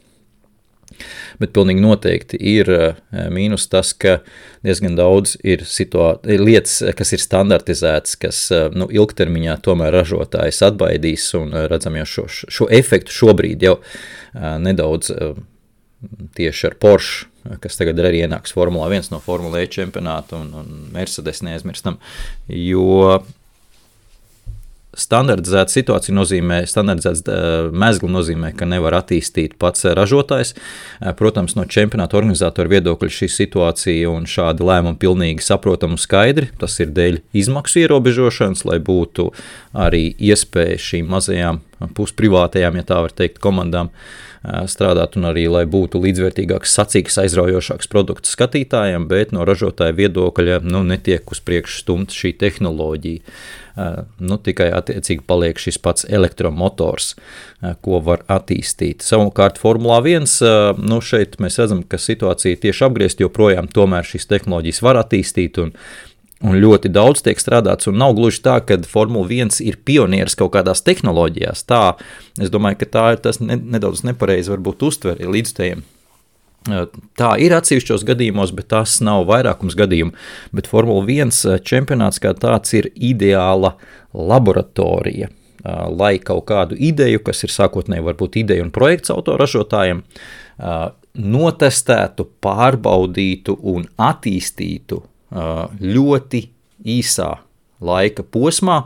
bet pilnīgi noteikti ir mīnus tas, ka diezgan daudz ir lietas, kas ir standartizētas, kas ilgtermiņā tomēr ražotājs atbaidīs, un redzam jau šo efektu šobrīd jau nedaudz tieši ar Porsche, kas tagad arī ienāks Formula 1 no Formula E čempionāta un Mercedes neaizmirstam, jo standardizēta situācija nozīmē, standardizēts mezgli nozīmē, ka nevar attīstīt pats ražotājs. Protams, no čempionāta organizatora viedokļa šī situācija un šādi lēmumi pilnīgi saprotami un skaidri. Tas ir dēļ izmaksu ierobežošanas, lai būtu arī iespēja šīm mazajām pusprivātajām, ja tā var teikt, komandām strādāt un arī, lai būtu līdzvērtīgāks, sacīgs, aizraujošāks produkts skatītājiem, bet no ražotāja viedokļa netiek uz priekšu stumta šī tehnoloģija. Tikai attiecīgi paliek šis pats elektromotors, ko var attīstīt. Savukārt Formulā 1, šeit mēs redzam, ka situācija tieši apgriezt, joprojām tomēr šīs tehnoloģijas var attīstīt un ļoti daudz tiek strādāts, un nav gluži tā, ka Formula 1 ir pionieris kaut kādās tehnoloģijās. Tā, es domāju, ka tā ir tas nedaudz nepareizi varbūt uztveri līdzstējiem. Tā ir atsevišķos gadījumos, bet tas nav vairākums gadījumu, bet Formula 1 čempionāts kā tāds ir ideāla laboratorija, lai kaut kādu ideju, kas ir sākotnēji varbūt ideja un projekts autoražotājiem, notestētu, pārbaudītu un attīstītu ļoti īsā laika posmā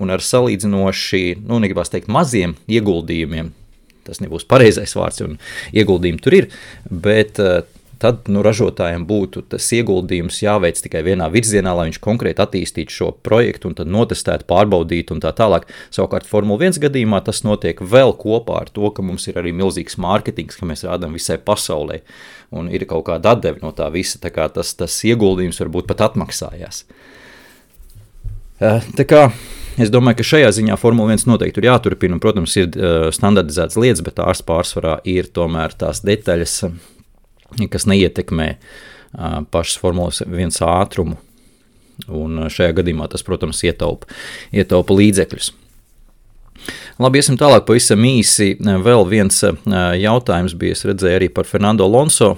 un ar salīdzinoši, negribās teikt, maziem ieguldījumiem. Tas nebūs pareizais vārds, un ieguldījumi tur ir, bet tad ražotājiem būtu tas ieguldījums jāveic tikai vienā virzienā, lai viņš konkrēti attīstītu šo projektu un tad notestētu, pārbaudītu un tā tālāk. Savukārt Formula 1 gadījumā tas notiek vēl kopā ar to, ka mums ir arī milzīgs mārketings, ka mēs rādām visai pasaulē un ir kaut kāda atdeve no tā visa, tā kā tas ieguldījums varbūt pat atmaksājās. Tā kā es domāju, ka šajā ziņā Formula 1 noteikti ir jāturpina, un, protams, ir standardizētas lietas, bet tās pārsvarā ir tomēr tās detaļas, kas neietekmē pašas Formulas 1 ātrumu, un šajā gadījumā tas, protams, ietaupa līdzekļus. Labi, iesim tālāk pavisam īsi. Vēl viens jautājums bija, es redzēju arī par Fernando Alonso,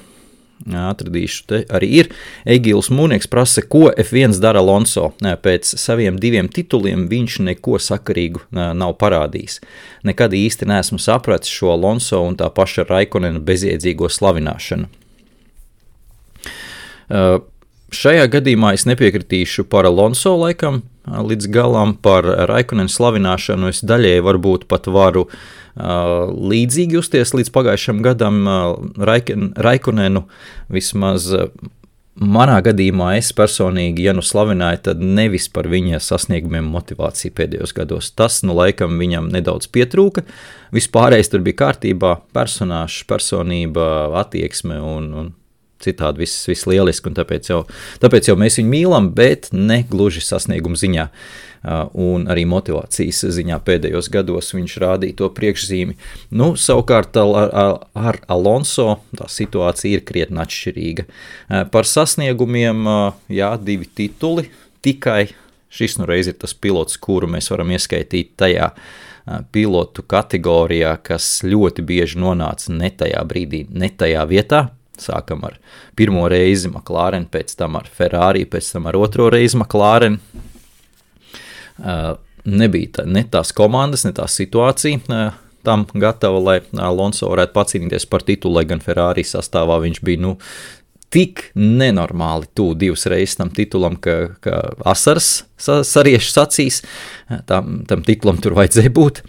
atradīšu te arī ir. Egīls Mūnieks prasa, ko F1 dara Alonso. Pēc saviem 2 tituliem viņš neko sakarīgu nav parādījis. Nekad īsti neesmu sapratis šo Alonso un tā paša Raikonena bezjēdzīgo slavināšanu. Šajā gadījumā es nepiekritīšu par Alonso laikam līdz galam, par Raikonena slavināšanu es daļēji varbūt pat varu līdzīgi justies līdz pagājušam gadam Raikonenu, vismaz manā gadījumā es personīgi, ja slavināju, tad nevis par viņa sasniegumiem motivāciju pēdējos gados. Tas, laikam viņam nedaudz pietrūka, vispārējais tur bija kārtībā, personāžs, personība, attieksme un citādi viss lieliski, un tāpēc jau mēs viņu mīlam, bet ne gluži sasniegumu ziņā un arī motivācijas ziņā pēdējos gados viņš rādīja to priekšzīmi. Savukārt ar Alonso tā situācija ir krietni atšķirīga. Par sasniegumiem, 2 tituli, tikai šis reiz ir tas pilots, kuru mēs varam ieskaitīt tajā pilotu kategorijā, kas ļoti bieži nonāca ne tajā brīdī, ne tajā vietā. Sākam ar pirmo reizi McLaren, pēc tam ar Ferrari, pēc tam ar otro reizi McLaren. nebija ne tās komandas, ne tā situācija tam gatava, lai Alonso varētu pacīnīties par titulu, lai gan Ferrari sastāvā viņš bija tik nenormāli tuvu 2 reizes tam titulam, ka asaras sariešu acīs, tam titulam tur vajadzēja būt.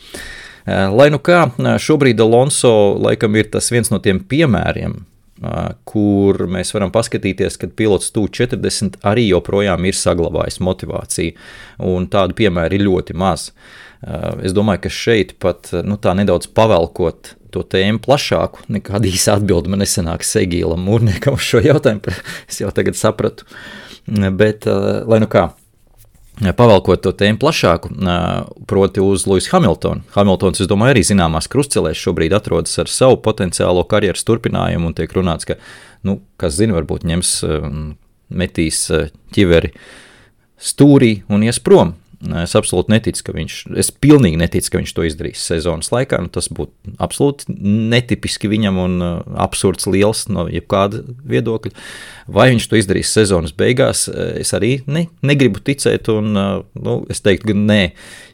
Lai nu kā, šobrīd Alonso laikam ir tas viens no tiem piemēriem, kur mēs varam paskatīties, kad pilots TU40 arī joprojām ir saglabājis motivāciju, un tādu piemēru ir ļoti maz. Es domāju, ka šeit pat tā nedaudz pavelkot to tēmu plašāku, nekāda īsa atbilde man nesanāks Egīlam Mūrniekam uz šo jautājumu, es jau tagad sapratu, bet lai nu kā, pavelkot to tēmu plašāku, proti uz Lewisu Hamiltonu. Hamiltons, es domāju, arī zināmās krustcelēs šobrīd atrodas ar savu potenciālo karjeras turpinājumu, un tiek runāts, ka, kas zina, varbūt ņems, metīs ķiveri stūrī un ies prom. Es absolūti neticu, es pilnīgi neticu, ka viņš to izdarīs sezonas laikā, tas būtu absolūti netipiski viņam un absurds liels no jebkāda viedokļa. Vai viņš to izdarīs sezonas beigās, es arī negribu ticēt, un es teiktu, ka nē,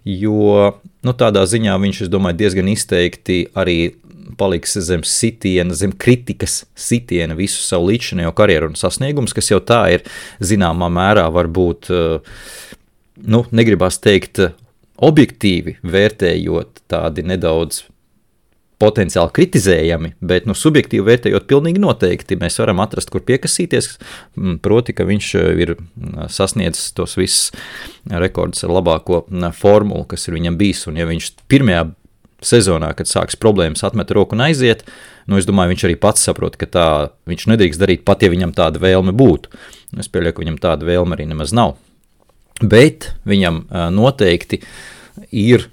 jo tādā ziņā viņš, es domāju, diezgan izteikti arī paliks zem sitiena, zem kritikas sitiena visu savu līdzinējo karjeru un sasniegumus, kas jau tā ir zināmā mērā varbūt negribas teikt objektīvi vērtējot tādi nedaudz potenciāli kritizējami, bet subjektīvi vērtējot pilnīgi noteikti mēs varam atrast, kur piekasīties, proti, ka viņš ir sasniedzis tos visus rekordus ar labāko formulu, kas ir viņam bijis, un ja viņš pirmajā sezonā, kad sāks problēmas, atmet roku un aiziet, es domāju, viņš arī pats saprot, ka tā viņš nedrīkst darīt pat, ja viņam tāda vēlme būtu. Es pieļauju, ka viņam tāda vēlme arī nemaz nav. Bet viņam noteikti ir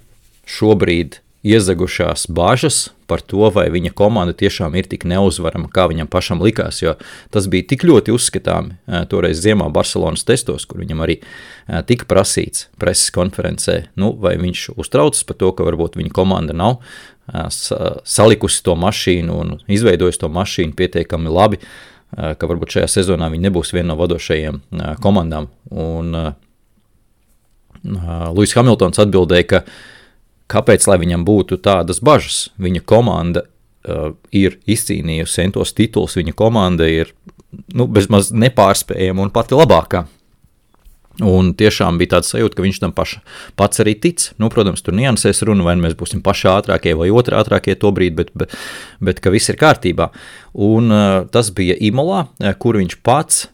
šobrīd iezagušās bāžas par to, vai viņa komanda tiešām ir tik neuzvarama, kā viņam pašam likās, jo tas bija tik ļoti uzskatāmi toreiz ziemā Barcelonas testos, kur viņam arī tika prasīts preses konferencē, vai viņš uztraucas par to, ka varbūt viņa komanda nav salikusi to mašīnu un izveidojusi to mašīnu pietiekami labi, ka varbūt šajā sezonā viņi nebūs viena no vadošajiem komandām. Un Lewis Hamiltons atbildēja, kāpēc, lai viņam būtu tādas bažas. Viņa komanda ir izcīnījusi centos tituls, viņa komanda ir bezmaz nepārspējama un pati labākā. Un tiešām bija tāds sajūta, ka viņš tam pats arī tic. Protams, tur niansēs runa, vai mēs būsim paši ātrākie vai otri ātrākie to brīdi, bet ka viss ir kārtībā. Un tas bija Imolā, kur viņš pats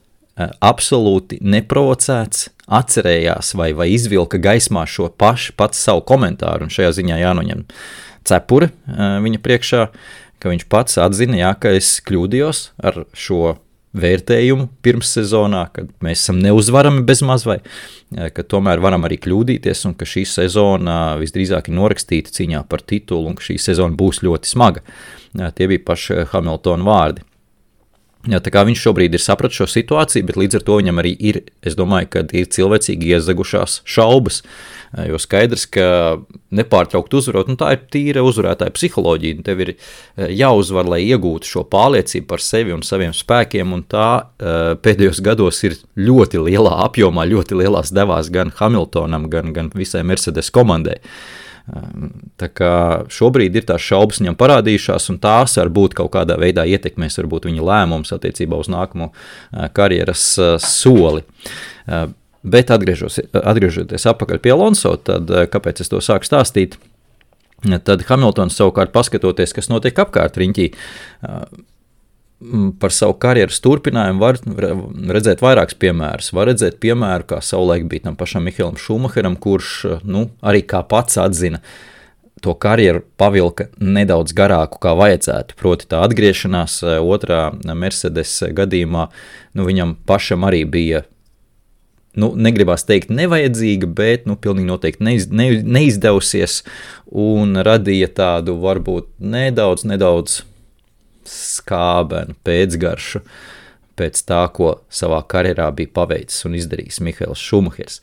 absolūti neprovocēts atcerējās vai izvilka gaismā šo pats savu komentāru, un šajā ziņā jānoņem cepure viņa priekšā, ka viņš pats atzina, ka es kļūdījos ar šo vērtējumu pirms sezonā, kad mēs esam neuzvarami bezmaz vai, ka tomēr varam arī kļūdīties, un ka šī sezona visdrīzāk ir norakstīta cīņā par titulu, un ka šī sezona būs ļoti smaga. Tie bija paši Hamiltona vārdi. Tā kā viņš šobrīd ir sapratis šo situāciju, bet līdz ar to viņam arī ir, es domāju, ka ir cilvēcīgi iezagušās šaubas, jo skaidrs, ka nepārtraukt uzvarot, tā ir tīra uzvarētāja psiholoģija, tev ir jāuzvar, lai iegūtu šo pārliecību par sevi un saviem spēkiem, un tā pēdējos gados ir ļoti lielā apjomā, ļoti lielās devās gan Hamiltonam, gan visai Mercedes komandai. Tā kā šobrīd ir tās šaubas viņam parādījušās, un tās varbūt kaut kādā veidā ietekmēs varbūt viņa lēmums attiecībā uz nākamo karjeras soli. Bet atgriežoties atpakaļ pie Alonso, tad kāpēc es to sāku stāstīt, tad Hamiltons savukārt paskatoties, kas notiek apkārt riņķī, par savu karjeras turpinājumu var redzēt vairākus piemērus. Var redzēt piemēru, kā savulaik bija tam pašam Mihaelam Šumacheram, kurš arī kā pats atzina, to karjeru pavilka nedaudz garāku, kā vajadzētu. Proti tā atgriešanās otrā Mercedes gadījumā, viņam pašam arī bija, negribās teikt nevajadzīga, bet pilnīgi noteikti neizdevusies un radīja tādu varbūt nedaudz skābenu pēcgaršu pēc tā, ko savā karjerā bija paveicis un izdarījis Mihaels Šumahers.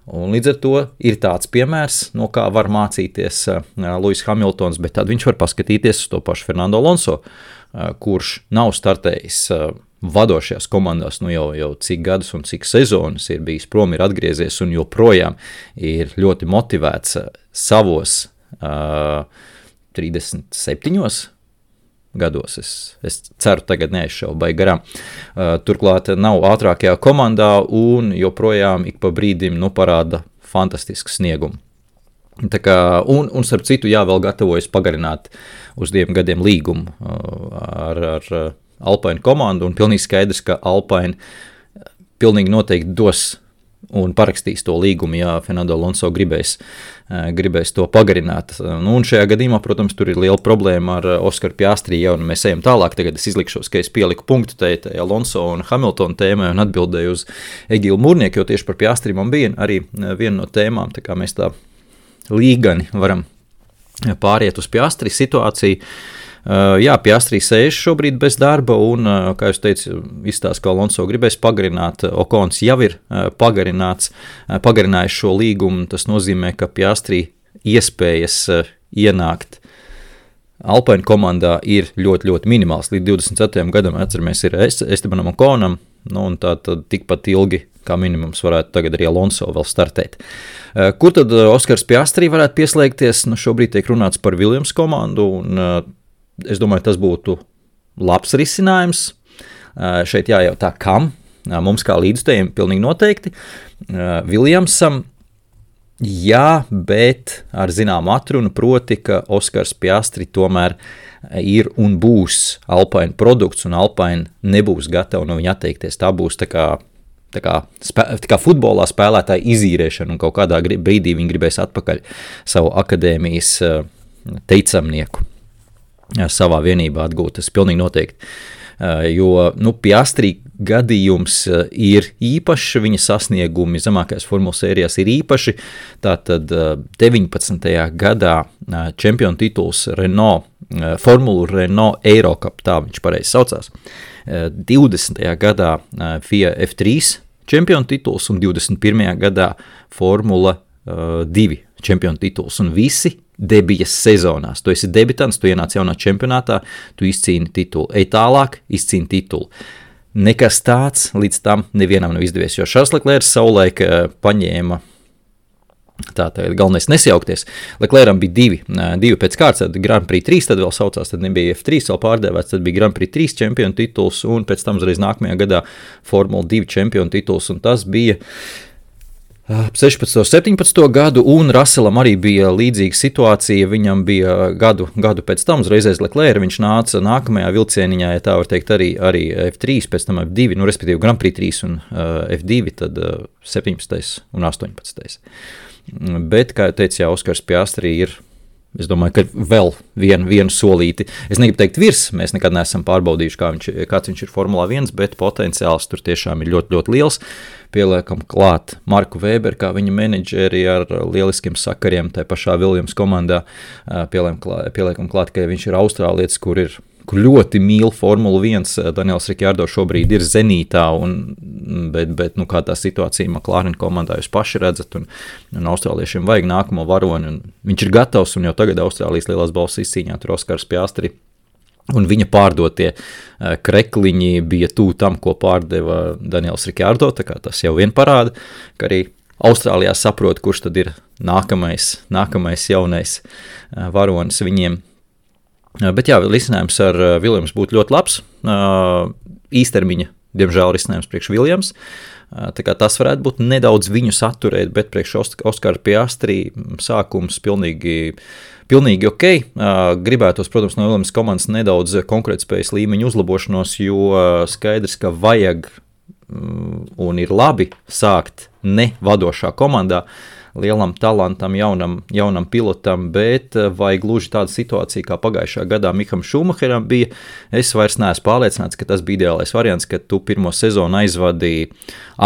Un līdz ar to ir tāds piemērs, no kā var mācīties Lewis Hamiltons, bet tad viņš var paskatīties uz to pašu Fernando Alonso, kurš nav startējis vadošajās komandās jau cik gadus un cik sezonas ir bijis prom, ir atgriezies un joprojām ir ļoti motivēts savos 37 gados. Es ceru, tagad neaizšaubai garām. Turklāt nav ātrākajā komandā un joprojām ik pa brīdim parāda fantastisku sniegumu. Tā kā, un starp citu, vēl gatavojas pagarināt uz 2 gadiem līgumu ar Alpine komandu, un pilnīgi skaidrs, ka Alpine pilnīgi noteikti dos un parakstīs to līgumu, ja Fernando Alonso gribēs to pagarināt. Un šajā gadījumā, protams, tur ir liela problēma ar Oskaru Piastri, un mēs ejam tālāk. Tagad es izlikšos, ka es pieliku punktu tai Alonso un Hamilton tēmai un atbildēju uz Egilu Mūrnieku, jo tieši par Piastri man bija arī viena no tēmām, tā kā mēs tā līgani varam pāriet uz Piastri situāciju. Jā, Piastri sēž šobrīd bez darba un, kā jūs teicu, izstāst, ka Alonso gribēs pagarināt. Okons jau ir pagarinājis šo līgumu. Tas nozīmē, ka Piastri iespējas ienākt Alpine komandā ir ļoti, ļoti minimāls. Līdz 24. gadam, atceramies, ir Estebanam Okonam, un tā tad tikpat ilgi kā minimums varētu tagad arī Alonso vēl startēt. Kur tad Oskars Piastri varētu pieslēgties? Šobrīd tiek runāts par Williams komandu, un es domāju, tas būtu labs risinājums. Šeit jājautā, kam? Mums kā līdzstājiem pilnīgi noteikti. Williamsam, jā, bet ar zināmu atrunu, proti, ka Oskars Piastri tomēr ir un būs Alpine produkts, un Alpine nebūs gatava no viņa atteikties. Tā būs tā kā futbolā spēlētāja izīrēšana, un kaut kādā brīdī viņi gribēs atpakaļ savu akadēmijas teicamnieku savā vienībā atgūt. Tas pilnīgi noteikti. Jo Piastri gadījums ir īpašs, viņa sasniegumi zemākajās formulas sērijās ir īpaši. Tātad 19. gadā čempionu tituls Renault, Formulu Renault Eurocup, tā viņš pareizi saucās. 20. gadā FIA F3 čempionu tituls un 21. gadā Formula 2 čempionu tituls, un visi debijas sezonās. Tu esi debitants, tu ienāc jaunā čempionātā, tu izcīni titulu. Ej tālāk, izcīni titulu. Nekas tāds līdz tam nevienam nav izdevies, jo Šarls Leklērs savulaik paņēma, tā galvenais nesajaukties. Leklēram bija divi pēc kārtas, tad Grand Prix 3, tad vēl saucās, tad nebija F3 vēl pārdēvēts, tad bija Grand Prix 3 čempionu tituls, un pēc tam uzreiz nākamajā gadā Formula 2 čempionu tituls, un tas bija 16. 17. gadu, un Russellam arī bija līdzīga situācija. Viņam bija gadu pēc tam, uzreiz aiz Leclerca, viņš nāca nākamajā vilcieniņā, ja tā var teikt, arī F3, pēc tam F2, respektīvi Grand Prix 3 un F2, tad 17. un 18. Bet, kā jau teicu, Oskars Piastri ir, es domāju, ka vēl vienu solīti. Es negribu teikt virs, mēs nekad neesam pārbaudījuši, kāds viņš ir Formulā 1, bet potenciāls tur tiešām ir ļoti, ļoti liels. Pieliekam klāt Marku Weberu, kā viņa menedžeri ar lieliskiem sakariem tai pašā Williams komandā. Pieliekam klāt, ka viņš ir austrālietis, kur ļoti mīl Formulu 1. Daniels Ricciardo šobrīd ir zenītā, bet kā tā situācija McLaren komandā jūs paši redzat, un austrāliešiem vajag nākamo varoni, un viņš ir gatavs, un jau tagad Austrālijas lielās balvas izcīņā tur Oskars Piastri. Un viņa pārdotie krekliņi bija tuvu tam, ko pārdeva Daniels Ricciardo, tā kā tas jau vien parāda, ka arī Austrālijā saprot, kurš tad ir nākamais jaunais varonis viņiem. Bet jā, risinājums ar Williams būtu ļoti labs, īstermiņa, diemžēl, risinājums priekš Williams. Tā kā tas varētu būt nedaudz viņu saturēt, bet priekš Oskara Piastri sākums pilnīgi ok. Gribētos, protams, no Williams komandas nedaudz konkurētspējas līmeņa uzlabošanos, jo skaidrs, ka vajag un ir labi sākt ne vadošā komandā, lielam talantam, jaunam pilotam, bet vai gluži tāda situācija, kā pagājušā gadā Miham Šumacheram bija, es vairs neesmu pārliecināts, ka tas bija ideālais variants, ka tu pirmo sezonu aizvadīji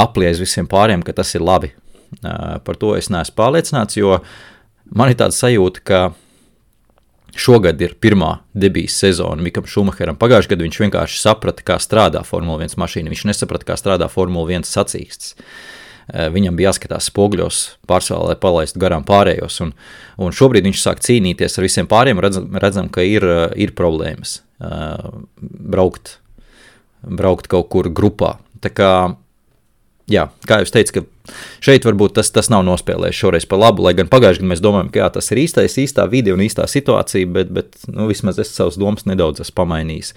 aplies visiem pāriem, ka tas ir labi. Par to es neesmu pārliecināts, jo man ir tāda sajūta, ka šogad ir pirmā debijas sezona Mikam Šumacheram. Pagājušajā gadā viņš vienkārši saprata, kā strādā Formula 1 mašīna, viņš nesaprata, kā strādā Formula 1 sacīksts. Viņam bija jāskatās spoguļos pārsvarā, lai palaistu garām pārējos, un šobrīd viņš sāk cīnīties ar visiem pāriem, redzam, ka ir problēmas braukt braukt kaut kur grupā. Tā kā, jā, kā jūs teicu, ka šeit varbūt tas nav nospēlējis šoreiz par labu, lai gan pagājuši, kad mēs domājam, ka jā, tas ir īstā vide un īstā situācija, bet vismaz es savas domas nedaudz esmu pamainījis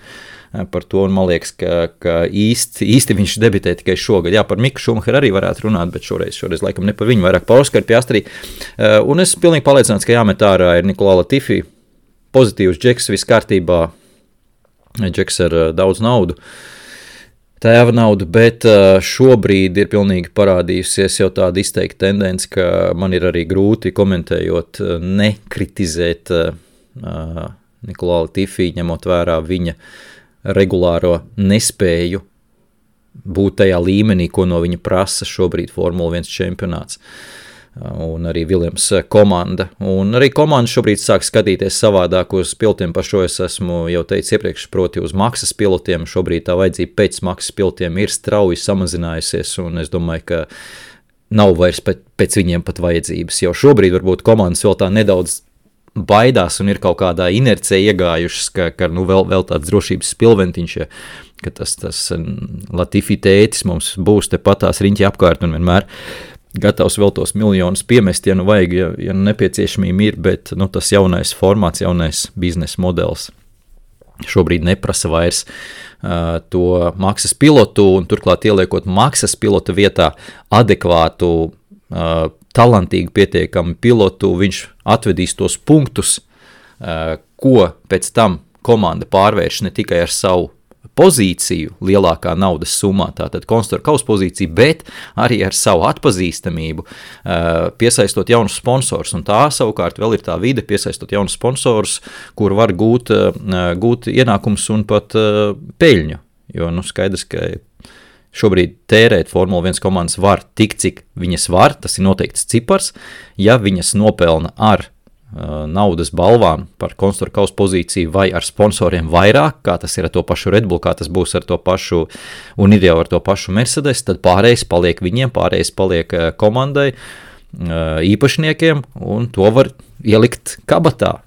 par to, un man liekas, ka īsti viņš debitē tikai šogad. Jā, par Miku Šumacheru arī varētu runāt, bet šoreiz laikam ne par viņu, vairāk par Oskaru Piastri. Un es pilnīgi pārliecināts, ka jāmet ārā ir Nicolas Latifi, pozitīvs džeks, viss kārtībā, džeks ar daudz naudu, tēva naudu, bet šobrīd ir pilnīgi parādījusies jau tāda izteikta tendence, ka man ir arī grūti komentējot, nekritizēt Nicolas Latifi, ņemot vērā viņa regulāro nespēju būt tajā līmenī, ko no viņa prasa šobrīd Formula 1 čempionāts. Un arī Williams komanda. Un arī komanda šobrīd sāk skatīties savādāk uz pilotiem, par šo es esmu jau teicis iepriekš, proti uz maksas pilotiem. Šobrīd tā vajadzība pēc maksas pilotiem ir strauji samazinājusies, un es domāju, ka nav vairs pēc viņiem pat vajadzības. Jau šobrīd varbūt komandas vēl tā nedaudz baidās un ir kaut kādā inercijā iegājušas, ka vēl tāds drošības spilventiņš, ka tas Latifi tētis mums būs te patās riņķi apkārt un vienmēr gatavs vēl tos miljonus piemest, ja vajag, ja nepieciešamība ir, bet tas jaunais formāts, jaunais biznesa modelis šobrīd neprasa vairs to maksas pilotu, un turklāt ieliekot maksas pilota vietā adekvātu, talantīgu pietiekamu pilotu, viņš atvedīs tos punktus, ko pēc tam komanda pārvērš ne tikai ar savu pozīciju lielākā naudas summā, tātad konstruktora kausa pozīciju, bet arī ar savu atpazīstamību, piesaistot jaunus sponsors, un tā savukārt vēl ir tā vide, piesaistot jaunus sponsors, kur var gūt ienākums un pat peļņu, jo skaidrs, ka šobrīd tērēt Formula 1 komandas var tik, cik viņas var, tas ir noteikts cipars, ja viņas nopelna ar naudas balvām par konstruktora kausa pozīciju vai ar sponsoriem vairāk, kā tas ir ar to pašu Red Bull, kā tas būs ar to pašu, un ir jau ar to pašu Mercedes, tad pārējais paliek viņiem, pārējais paliek komandai, īpašniekiem, un to var ielikt kabatā,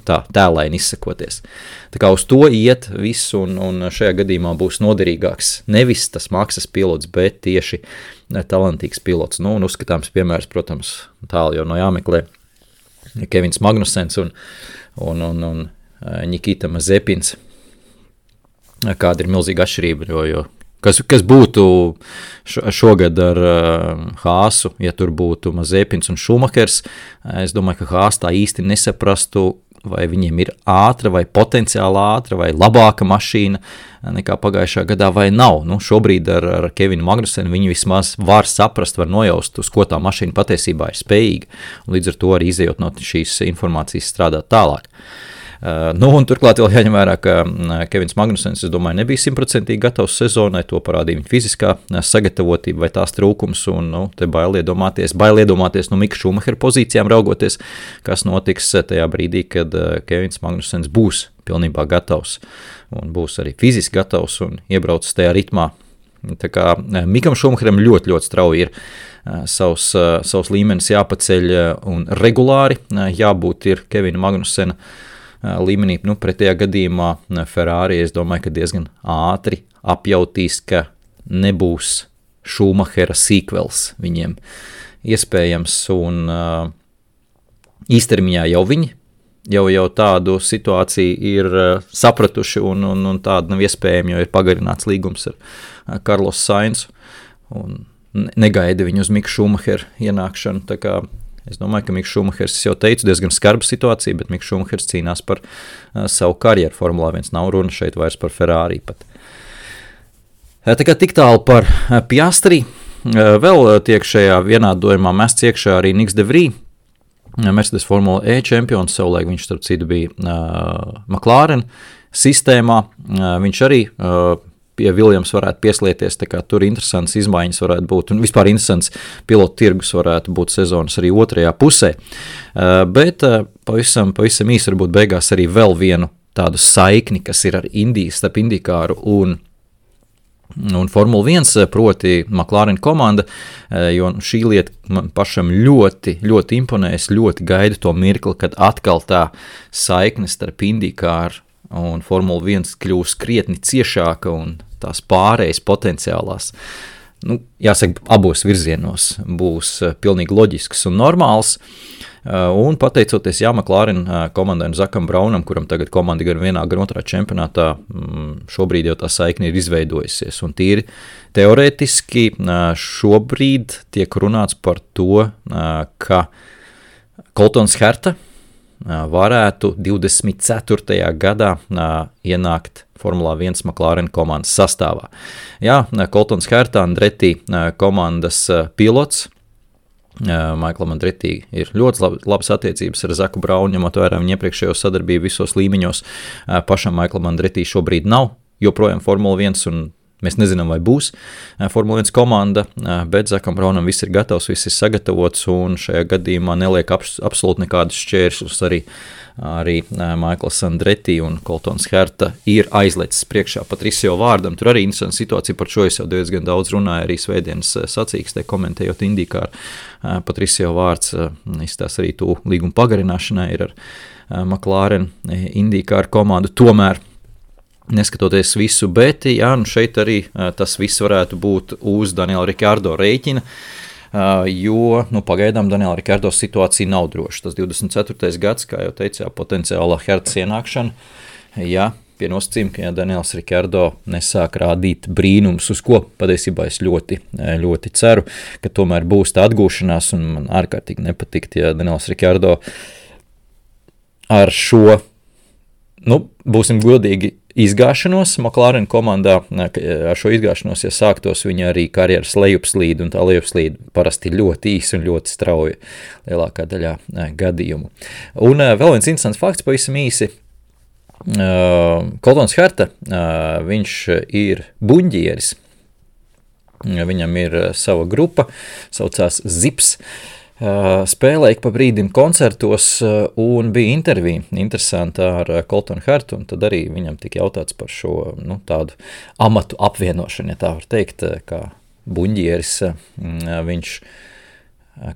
tā tēlaini izsakoties. Tā kā uz to iet viss, un šajā gadījumā būs noderīgāks nevis tas maksas pilots, bet tieši talantīgs pilots. Un uzskatāms piemērs, protams, tālu jau no jāmeklē, Kevins Magnusens un Nikita Mazepins. Kāda ir milzīga atšķirība, jo kas būtu šogad ar Haasu, ja tur būtu Mazepins un Šumachers, es domāju, ka Haas tā īsti nesaprastu, vai viņiem ir ātra, vai potenciāli ātra, vai labāka mašīna nekā pagājušā gadā, vai nav. Šobrīd ar Kevinu Magnusenu viņi vismaz var saprast, var nojaust, uz ko tā mašīna patiesībā ir spējīga, un līdz ar to arī izējot no šīs informācijas strādāt tālāk. Un turklāt vēl jāņem vērā, ka Kevins Magnusens, es domāju, nebija 100% gatavs sezonai, to parādīja viņa fiziskā sagatavotība vai tās trūkums, un te bail iedomāties no Mika Šumachera pozīcijām raugoties, kas notiks tajā brīdī, kad Kevins Magnusens būs pilnībā gatavs, un būs arī fiziski gatavs un iebraucis tajā ritmā. Tā kā Mikam Šumacheram ļoti, ļoti strauji ir savs līmenis jāpaceļ un regulāri jābūt ir Kevina Magnusena līmenī, pretējā gadījumā Ferrari, es domāju, ka diezgan ātri apjautīs, ka nebūs Šumachera sequels viņiem iespējams, un īstermiņā jau viņi jau tādu situāciju ir sapratuši, un tāda nav iespējama, jo ir pagarināts līgums ar Carlos Sainzu, un negaida viņu uz Miku Šumacheru ienākšanu, tā kā es domāju, ka Miks Šumachers, es jau teicu, diezgan skarba situācija, bet Miks Šumachers cīnās par savu karjeru Formulā 1, nav runa šeit vairs par Ferrari pat. Tā kā tik tālu par Piastri, vēl tiek šajā vienādojumā mests iekšā arī Niks de Vries, Mercedes Formula E čempions, savulaik viņš starp citu bija McLaren sistēmā, viņš arī pie Williams varētu pieslieties, tā kā tur interesants izmaiņas varētu būt, un vispār interesants pilotu tirgus varētu būt sezonas arī otrajā pusē. Bet pavisam īsi varbūt beigās arī vēl vienu tādu saikni, kas ir ar starp Indīkāru un Formula 1, proti McLaren komanda, jo šī lieta man pašam ļoti, ļoti imponēs, ļoti gaidu to mirkli, kad atkal tā saikne starp Indīkāru un Formula 1 kļūs krietni ciešāka, un tās pārējas potenciālās, jāsaka, abos virzienos būs pilnīgi loģisks un normāls. Un pateicoties McLaren komandai un Zakam Braunam, kuram tagad komanda gan vienā, gan otrā čempionātā, šobrīd jau tā saikne ir izveidojusies. Un tīri teorētiski šobrīd tiek runāts par to, ka Coltons Herta varētu 24. gadā ienākt Formulā 1 McLaren komandas sastāvā. Jā, Coltons Herta, Andretti komandas pilots. Maiklam Andretti ir ļoti labas attiecības ar Zaku Braunu, ņemot vērā viņa iepriekšējo sadarbību visos līmeņos. Pašam Maiklam Andretti šobrīd nav joprojām Formula 1 un mēs nezinām, vai būs Formula 1 komanda, bet Zakam Braunam viss ir gatavs, viss ir sagatavots un šajā gadījumā neliek absolūti nekādus šķēršļus arī Maikls Andretti un Coltons Herta ir aizlecis priekšā Patricio vārdam. Tur arī interesanta situācija, par šo es jau diezgan daudz runāju arī svētdienas sacīkstē, komentējot IndyCar. Patricio vārds izstās arī to līgumu pagarināšanai ir ar McLaren IndyCar komandu. Tomēr, neskatoties visu, bet šeit arī tas viss varētu būt uz Daniela Ricciardo rēķina, jo pagaidām Daniela Ricciardo situācija nav droša. Tas 24. gads, kā jau teicu, potenciāla Hertas ienākšana, pie nosacījuma, ka Daniels Ricciardo nesāk rādīt brīnums, uz ko patiesībā es ļoti, ļoti ceru, ka tomēr būs tā atgūšanās, un man ārkārtīgi nepatikt, ja Daniels Ricciardo ar šo, būsim godīgi, izgāšanos McLaren komandā, ar šo izgāšanos, ja sāktos viņa arī karjeras lejupslīde, un tā lejupslīde parasti ļoti īsa un ļoti strauja lielākā daļā gadījumu. Un vēl viens interesants fakts, pavisam īsi, Coltons Herta, viņš ir buņģieris, viņam ir sava grupa, saucās Zips, spēlēja pa brīdim koncertos un bija intervija interesanta ar Coltonu Hertu, un tad arī viņam tika jautāts par šo tādu amatu apvienošanu, ja tā var teikt, kā buņģieris. Viņš,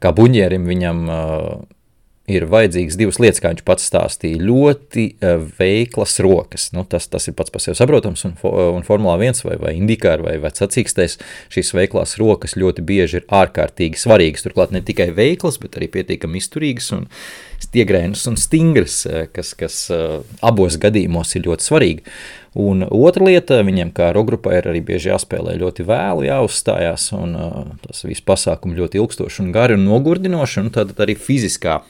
kā buņģierim viņam ir vajadzīgas divas lietas, kā viņš pats stāstīja, ļoti veiklas rokas. Tas ir pats par sevi saprotams, un Formulā 1 vai IndyCar vai sacīkstēs šīs veiklās rokas ļoti bieži ir ārkārtīgi svarīgas. Turklāt ne tikai veiklas, bet arī pietiekami izturīgas un stiegrainas un stingras, kas abos gadījumos ir ļoti svarīgi. Un otra lieta, viņiem kā rokgrupai ir arī bieži jāspēlē ļoti vēlu, jāuzstājās, un tas viss pasākumi ļoti ilgstoši un gari un nogurdinoši, un tad arī fiziskā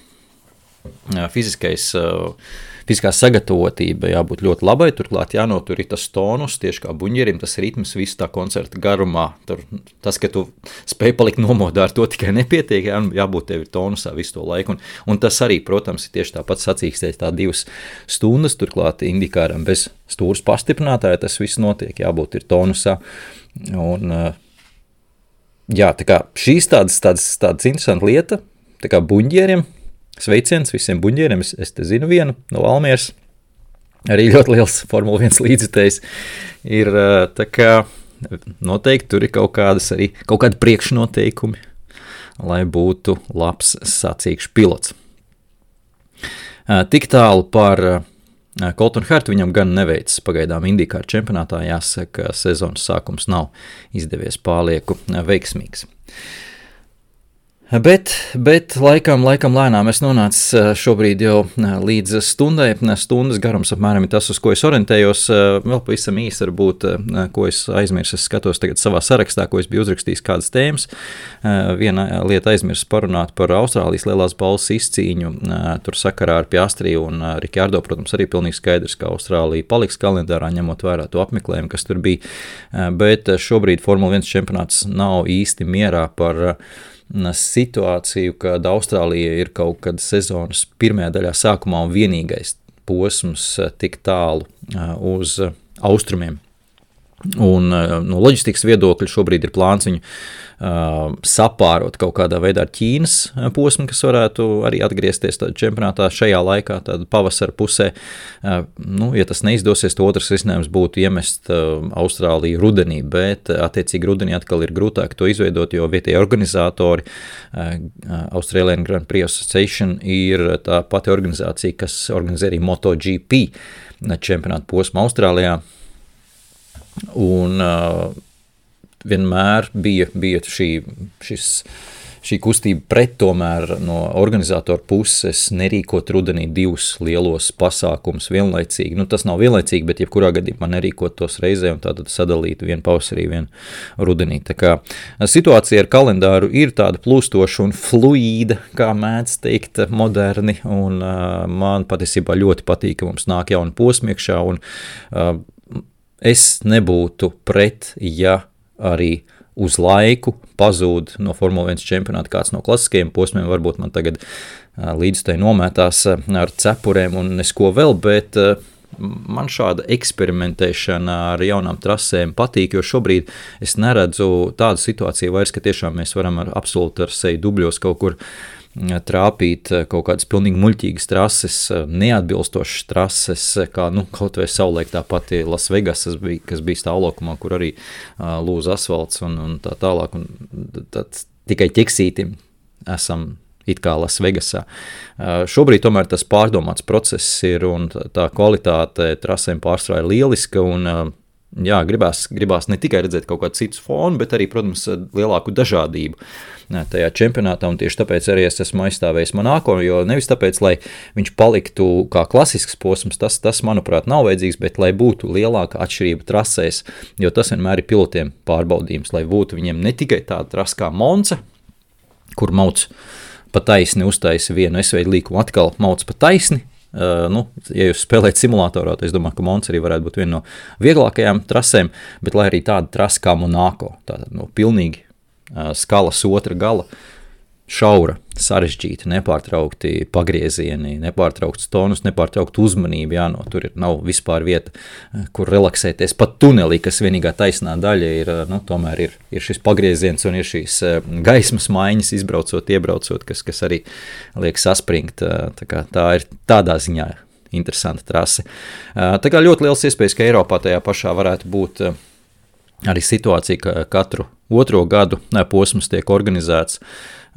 sagatavotība jābūt ļoti labai, turklāt jānotur tas tonus, tieši kā buņģerim, tas ritms visu tā koncerta garumā. Tas, ka tu spēj palikt nomodā, ar to tikai nepietiek, jābūt tev ir tonusā visu to laiku. Un tas arī, protams, ir tieši tāpat sacīkstēt tā 2 stundas, turklāt IndyCaram bez stūras pastiprinātāja tas viss notiek, jābūt ir tonusā. Un, tā kā šīs tādas interesanta lieta, tā kā buņģieriem, sveiciens visiem buņģieriem, es te zinu vienu no Valmieras, arī ļoti liels Formula 1 līdzjutējs ir, tā kā noteikti tur ir kaut kādi priekšnoteikumi, lai būtu labs sacīkšu pilots. Tik tālu par Coltonu Hertu, viņam gan neveicis pagaidām IndyCar čempionātā, jāsaka, sezonas sākums nav izdevies pārlieku veiksmīgs. Bet laikam lēnām es nonācu šobrīd jau līdz stundai. Stundas garums apmēram ir tas, uz ko es orientējos. Vēl pavisam īsi varbūt, ko es aizmirsu. Es skatos tagad savā sarakstā, ko es biju uzrakstījis kādas tēmas. Viena lieta aizmirsu parunāt par Austrālijas lielās balvas izcīņu. Tur sakarā ar Piastri un Ricciardo, protams, arī pilnīgi skaidrs, ka Austrālija paliks kalendārā, ņemot vērā to apmeklējumu, kas tur bija. Bet šobrīd Formula 1 čempionāts nav īsti mierā par situāciju, kad Austrālija ir kaut kad sezonas pirmajā daļā sākumā un vienīgais posms tik tālu uz austrumiem. Un no loģistikas viedokļa šobrīd ir plāns viņu sapārot kaut kādā veidā ar Ķīnas posmu, kas varētu arī atgriezties čempionātā šajā laikā, tāda pavasara pusē. Ja tas neizdosies, to otrs risinājums būtu iemest Austrāliju rudenī, bet attiecīgi rudenī atkal ir grūtāk to izveidot, jo vietējie organizatori Australian Grand Prix Association ir tā pati organizācija, kas organizē arī MotoGP čempionātu posmu Austrālijā. Un vienmēr bija šī kustība pret tomēr no organizatora puses nerīkot rudenī 2 lielos pasākumus vienlaicīgi. Tas nav vienlaicīgi, bet jebkurā gadījumā nerīkot tos reizē un tātad sadalīt vienu pavasarī, vienu rudenī. Tā kā situācija ar kalendāru ir tāda plūstoša un fluīda, kā mēdz teikt moderni, un man patiesībā ļoti patīk, ka mums nāk jauni posmi iekšā, un es nebūtu pret, ja arī uz laiku pazūd no Formula 1 čempionāta kāds no klasiskajiem posmiem, varbūt man tagad līdzstēji nomētās ar cepurēm un nesko vēl, bet man šāda eksperimentēšana ar jaunām trasēm patīk, jo šobrīd es neredzu tādu situāciju vairs, ka tiešām mēs varam absolūti ar seju dubļos kaut kur trāpīt kaut kādas pilnīgi muļķīgas trases, neatbilstošas trases, kā kaut vai savulaik tā pati Las Vegas, kas bija stāvlaukumā, kur arī lūza asfalts un tā tālāk, un tad tikai ķeksītim esam it kā Las Vegasā. Šobrīd tomēr tas pārdomāts process ir, un tā kvalitāte trasēm pārstrā ir lieliska, un jā, gribās ne tikai redzēt kaut kādu citu fonu, bet arī, protams, lielāku dažādību tajā čempionātā, un tieši tāpēc arī es esmu aizstāvējis Monako, jo nevis tāpēc, lai viņš paliktu kā klasisks posms, tas manuprāt, nav vajadzīgs, bet lai būtu lielāka atšķirība trasēs, jo tas vienmēr ir pilotiem pārbaudījums, lai būtu viņiem ne tikai tāda trasa kā Monza, kur mauc pa taisni uztaisa vienu S-veidu līkumu, atkal mauc pa taisni. Ja jūs spēlējat simulatorā, tad es domāju, ka Monza arī varētu būt viena no vieglākajām trasēm, bet lai arī tāda trasa kā Monako, tātad pilnīgi skalas otra gala, šaura, sarežģīta, nepārtraukti pagriezieni, nepārtraukts tonus, nepārtraukta uzmanība, tur nav vispār vieta, kur relaksēties. Pat tunelī, kas vienīgā taisnā daļa ir, tomēr ir šis pagrieziens un ir šīs gaismas maiņas izbraucot, iebraucot, kas arī liek saspringt. Tā ir tādā ziņā interesanta trase. Tā kā ļoti liels iespējas, ka Eiropā tajā pašā varētu būt arī situācija, ka katru otro gadu posms tiek organizēts,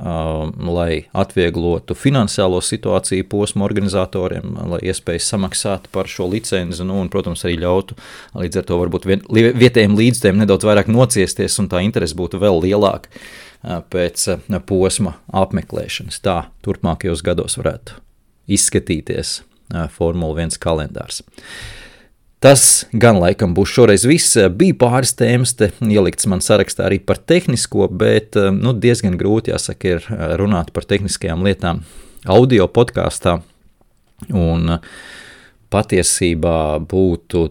lai atvieglotu finansiālo situāciju posmu organizatoriem, lai iespējas samaksāt par šo licenzi, un, protams, arī ļautu līdz ar to varbūt vietējiem līdzstiem nedaudz vairāk nociesties, un tā interese būtu vēl lielāka pēc posma apmeklēšanas. Tā turpmākajos gados varētu izskatīties Formula 1 kalendārs. Tas gan laikam būs šoreiz viss. Bija pāris tēmas te ielikts man sarakstā arī par tehnisko, bet diezgan grūti, jāsaka, ir runāt par tehniskajām lietām audio podkāstā. Un patiesībā būtu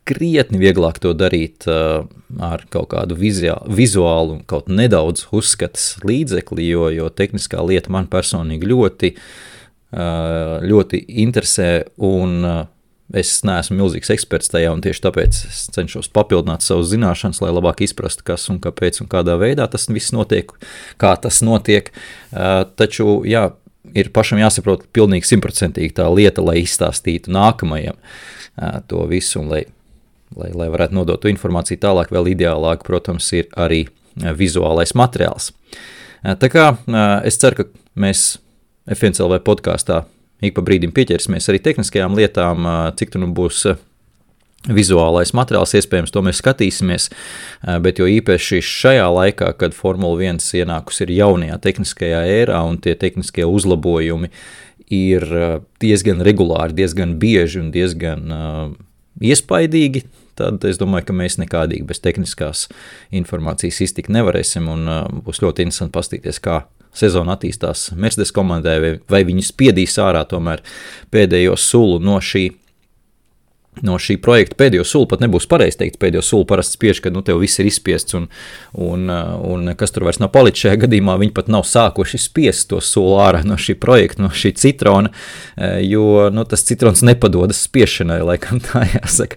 krietni vieglāk to darīt ar kaut kādu vizuālu un kaut nedaudz uzskatas līdzekli, jo tehniskā lieta man personīgi ļoti interesē, un es neesmu milzīgs eksperts tajā, un tieši tāpēc es cenšos papildināt savus zināšanas, lai labāk izprastu, kas un kāpēc un kādā veidā tas viss notiek, kā tas notiek. Taču, jā, ir pašam jāsaprot pilnīgi 100% tā lieta, lai izstāstītu nākamajam to visu, un lai varētu nodot to informāciju tālāk, vēl ideālāk, protams, ir arī vizuālais materiāls. Tā kā es ceru, ka mēs F1 LV podkāstā ik pa brīdim pieķersimies arī tehniskajām lietām, cik tu būs vizuālais materiāls, iespējams, to mēs skatīsimies, bet jo īpaši šajā laikā, kad Formula 1 ienākus ir jaunajā tehniskajā ērā un tie tehniskie uzlabojumi ir diezgan regulāri, diezgan bieži un diezgan iespaidīgi, tad es domāju, ka mēs nekādīgi bez tehniskās informācijas iztikt nevarēsim, un būs ļoti interesanti paskatīties, kā sezona attīstās Mercedes komandai, vai viņi spiedīs ārā tomēr pēdējo sulu no šī projekta. Pēdējo sulu pat nebūs pareizi teikt, pēdējo sulu parasti spiež, kad tev viss ir izspiests un kas tur vairs nav palicis šajā gadījumā, viņi pat nav sākuši spiest to sulu ārā no šī projekta, no šī citrona, jo tas citrons nepadodas spiešanai, laikam tā jāsaka.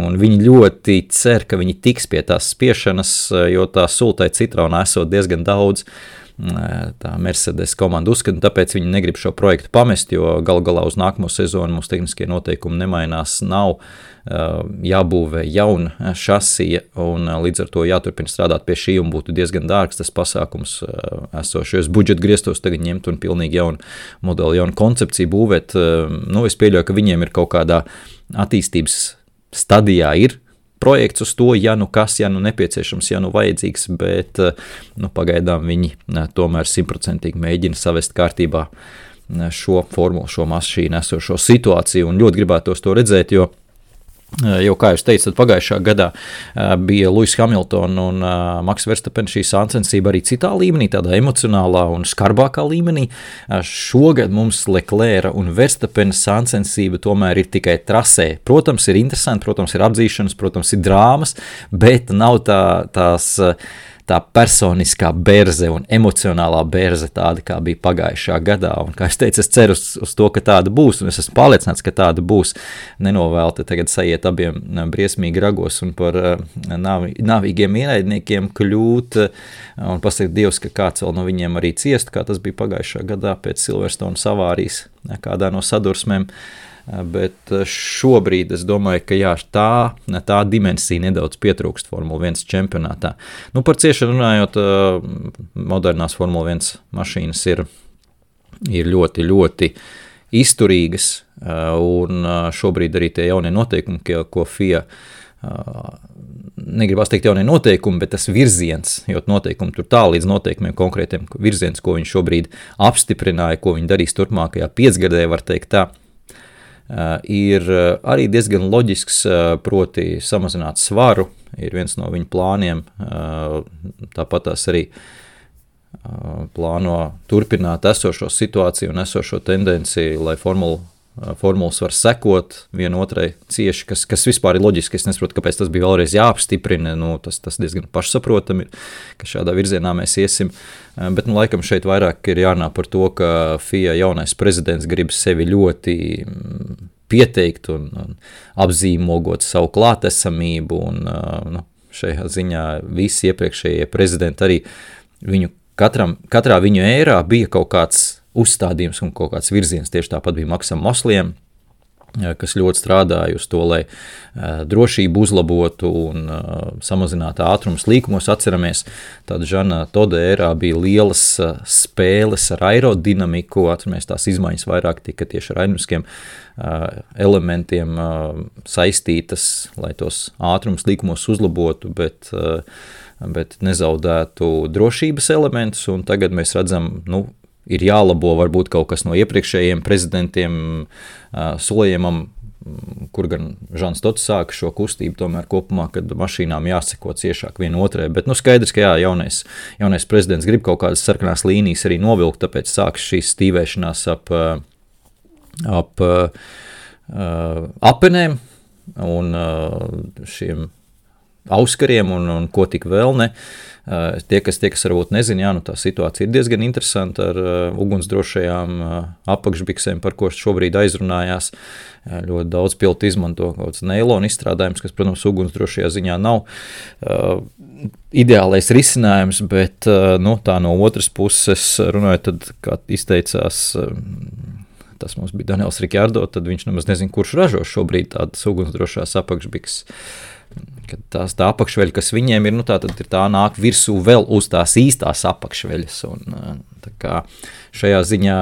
Un viņi ļoti cer, ka viņi tiks pie tās spiešanas, jo tā sultai citronā esot diezgan daudz. Tā Mercedes komanda uzskata, tāpēc viņi negrib šo projektu pamest, jo galu galā uz nākamo sezonu mums tehniskie noteikumi nemainās, nav jābūvē jauna šasija, un līdz ar to jāturpina strādāt pie šī, un būtu diezgan dārgs tas pasākums esošajos budžeta griestos tagad ņemt un pilnīgi jaunu modeli, jaunu koncepciju būvēt. Es pieļauju, ka viņiem ir kaut kādā attīstības stadijā ir projekts uz to, ja nu kas, ja nu nepieciešams, ja nu vajadzīgs, bet pagaidām viņi tomēr 100% mēģina savest kārtībā šo formulu, šo mašīnu esošo situāciju, un ļoti gribētos to redzēt, jo, kā jūs teicat, pagājušā gadā bija Lewis Hamilton un Max Verstappen šī sacensība arī citā līmenī, tādā emocionālā un skarbākā līmenī. Šogad mums Leclerca un Verstappen sacensība tomēr ir tikai trasē. Protams, ir interesanti, protams, ir apdzīšanas, protams, ir drāmas, bet nav tā personiskā berze un emocionālā berze tāda, kā bija pagājušā gadā. Un, kā es teicu, es ceru uz to, ka tāda būs, un es esmu pārliecināts, ka tāda būs. Nenovēlti tagad sajiet abiem briesmīgi ragos un par nāvīgiem ienaidniekiem kļūt, un pasaka Dievs, ka kāds vēl no viņiem arī ciest, kā tas bija pagājušā gadā pēc Silverstone avārijas kādā no sadursmēm. Bet šobrīd es domāju, ka jā, tā dimensija nedaudz pietrūkst Formula 1 čempionātā. Par ciešanu runājot, modernās Formula 1 mašīnas ir ļoti, ļoti izturīgas, un šobrīd arī tie jaunie noteikumi, ko FIA, negribās teikt jaunie noteikumi, bet tas virziens, jo noteikumi tur tā līdz noteikumiem konkrētiem virziens, ko viņi šobrīd apstiprināja, ko viņi darīs turpmākajā 5-gadē, var teikt tā, ir arī diezgan loģisks, proti samazināt svaru, ir viens no viņu plāniem, tāpat tās arī plāno turpināt esošo situāciju un esošo tendenciju, lai formulas var sekot vienotrai cieši, kas vispār ir loģiski. Es nesaprotu, kāpēc tas bija vēlreiz jāapstiprina, tas diezgan pašsaprotami ir, ka šādā virzienā mēs iesim, bet laikam šeit vairāk ir jārunā par to, ka FIA jaunais prezidents grib sevi ļoti pieteikt un apzīmogot savu klātesamību, un šajā ziņā visi iepriekšējie prezidenti arī katrā viņu ērā bija kaut kāds uzstādījums un kaut kāds virziens. Tieši tāpat bija Maksam Mosliem, kas ļoti strādāja uz to, lai drošību uzlabotu un samazinātu ātrumus līkumos. Atceramies, tāda Žana Toda ērā bija lielas spēles ar aerodinamiku, atceramies, tās izmaiņas vairāk tika tieši ar aerodinamiskiem elementiem saistītas, lai tos ātrumus līkumos uzlabotu, bet nezaudētu drošības elementus, un tagad mēs redzam, ir jālabo varbūt kaut kas no iepriekšējiem prezidentiem solījumam, kur gan Žans Tots sāka šo kustību tomēr kopumā, kad mašīnām jāseko ciešāk vienotrai, bet skaidrs, ka jaunais prezidents grib kaut kādas sarkanās līnijas arī novilkt, tāpēc sāks šīs stīvēšanās ap apenēm un šiem auskariem un ko tik vēl ne. Tie, kas varbūt nezina, tā situācija ir diezgan interesanta ar ugunsdrošajām apakšbiksēm, par ko šobrīd aizrunājās. Ļoti daudz pilotu izmanto kaut kāds neilona izstrādājums, kas, protams, ugunsdrošajā ziņā nav ideālais risinājums, bet tā no otras puses runājot, tad, kā izteicās, tas mums bija Daniels Ricciardo, tad viņš nemaz nezina, kurš ražo šobrīd tādas ugunsdrošās apakšbikses. Kad tā apakšveļa, kas viņiem ir, tad ir tā nāk virsū vēl uz tās īstās apakšveļas. Un, tā kā šajā ziņā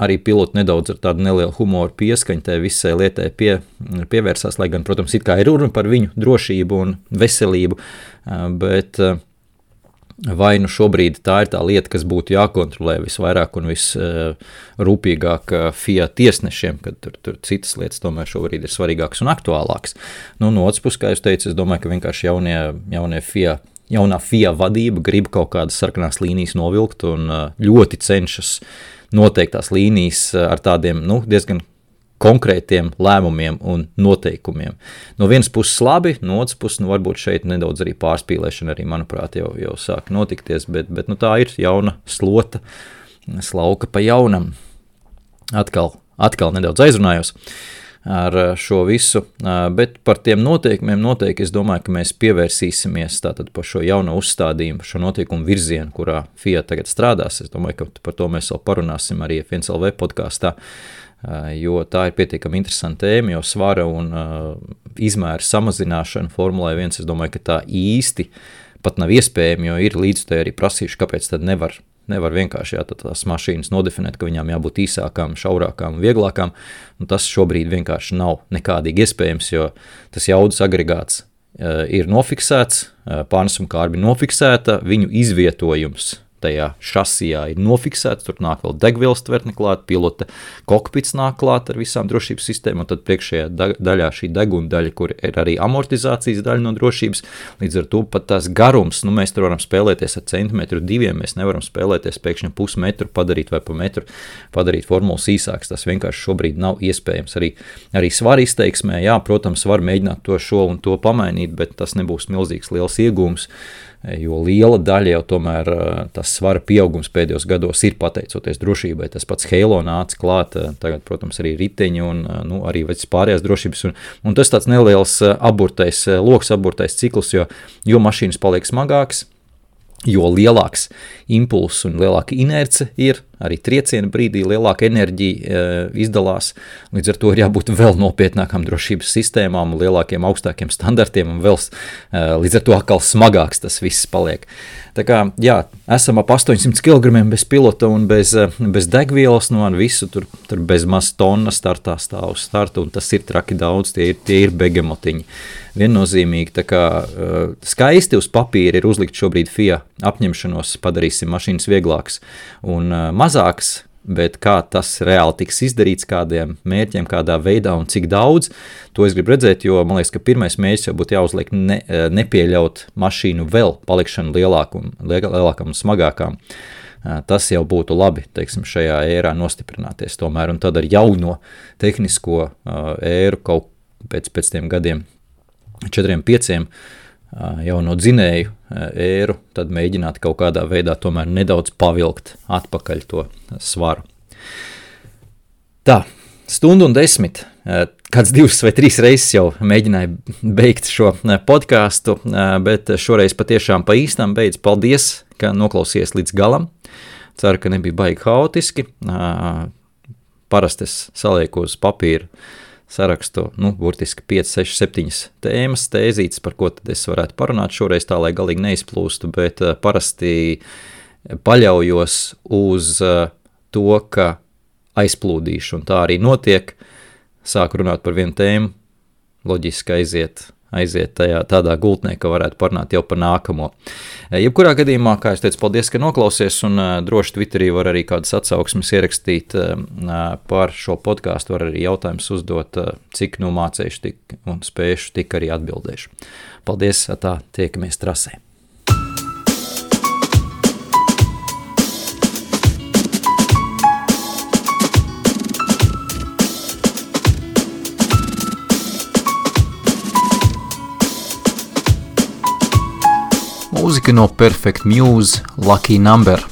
arī piloti nedaudz ar tādu nelielu humoru pieskaņu tai visai lietai pievērsās, lai gan, protams, it kā ir runa par viņu drošību un veselību, bet vai šobrīd tā ir tā lieta, kas būtu jākontrolē visvairāk un visrūpīgāk FIA tiesnešiem, kad tur citas lietas tomēr šobrīd ir svarīgākas un aktuālākas. No otras puses, kā jūs teicu, es domāju, ka vienkārši jaunā FIA vadība grib kaut kādas sarkanās līnijas novilkt un ļoti cenšas noteiktās līnijas ar tādiem, diezgan konkrētiem lēmumiem un noteikumiem. No vienas puses labi, no otras puses varbūt šeit nedaudz arī pārspīlēšana arī, manuprāt, jau sāk notikties, bet tā ir jauna slota, slauka pa jaunam. Atkal nedaudz aizrunājos ar šo visu, bet par tiem noteikumiem noteikti es domāju, ka mēs pievērsīsimies tātad par šo jauno uzstādījumu, šo noteikumu virzienu, kurā FIA tagad strādās. Es domāju, ka par to mēs vēl parunāsim arī F1LV podkāstā, jo tā ir pietiekami interesanta tēma, jo svara un izmēra samazināšana Formulai 1, es domāju, ka tā īsti pat nav iespējama, jo ir līdzutēji arī prasījuši, kāpēc tad nevar vienkārši tās mašīnas nodefinēt, ka viņām jābūt īsākām, šaurākām, vieglākām, un tas šobrīd vienkārši nav nekādīgi iespējams, jo tas jaudas agregāts ir nofiksēts, pārnesuma kārba ir nofiksēta, viņu izvietojums tajā šasijā ir nofiksēts, tur nāk vēl degvielas tvertne klāt, pilota kokpits nāk klāt ar visām drošības sistēmām, un tad priekšējā daļā šī deguna daļa, kur ir arī amortizācijas daļa no drošības, līdz ar to pat tās garums, mēs tur varam spēlēties ar centimetru 2, mēs nevaram spēlēties pēkšņi pusmetru padarīt vai pa metru padarīt formulas īsāks, tas vienkārši šobrīd nav iespējams. Arī svara izteiksmē, jā, protams, var mēģināt to šo un to pamainīt, bet tas nebūs milzīgs liels iegūms, jo liela daļa jau tomēr tas svara pieaugums pēdējos gados ir pateicoties drošībai. Tas pats Halo nāca klāt, tagad, protams, arī riteņi un arī pārējās drošības. Un tas tāds neliels loks aburtais cikls, jo mašīnas paliek smagāks, jo lielāks impulss un lielāka inerce ir, arī trieciena brīdī lielāka enerģija izdalās, līdz ar to ir jābūt vēl nopietnākām drošības sistēmām, lielākiem, augstākiem standartiem un vēl līdz ar to atkal smagāks tas viss paliek. Tā kā, jā, esam ap 800 kg bez pilota un bez degvielas, visu tur bez maz tonna startā stāv uz starta, un tas ir traki daudz, tie ir begemotiņi. Viennozīmīgi, tā kā skaisti uz papīra ir uzlikt šobrīd FIA apņemšanos, padarīsim mašīnas vieglākas un mazākas, bet kā tas reāli tiks izdarīts, kādiem mērķiem, kādā veidā un cik daudz, to es gribu redzēt, jo man liekas, ka pirmais mērķis jau būtu jāuzliek nepieļaut mašīnu vēl palikšanu lielākām un smagākām. Tas jau būtu labi, teiksim, šajā ērā nostiprināties tomēr, un tad ar jauno tehnisko ēru kaut pēc tiem gadiem 4-5 jauno dzinēju ēru, tad mēģināt kaut kādā veidā tomēr nedaudz pavilkt atpakaļ to svaru. Tā, 1:10, kāds 2 vai 3 reizes jau mēģināju beigt šo podcastu, bet šoreiz patiešām pa īstām beidz. Paldies, ka noklausījies līdz galam. Ceru, ka nebija baigi haotiski. Parasti es salieku uz papīra sarakstu, burtiski 5, 6, 7 tēmas, tēzītes, par ko tad es varētu parunāt šoreiz tā, lai galīgi neizplūstu, bet parasti paļaujos uz to, ka aizplūdīšu, un tā arī notiek. Sāku runāt par vienu tēmu, loģiski aiziet tādā gultnē, ka varētu parunāt jau par nākamo. Jebkurā gadījumā, kā es teicu, paldies, ka noklausies, un droši Twitterī var arī kādas atsauksmes ierakstīt par šo podcastu, var arī jautājumus uzdot, cik mācējuši tik un spējuši, tik arī atbildēšu. Paldies, tā, tiekamies trasē. Mūzika no Perfect Muse, Lucky Number.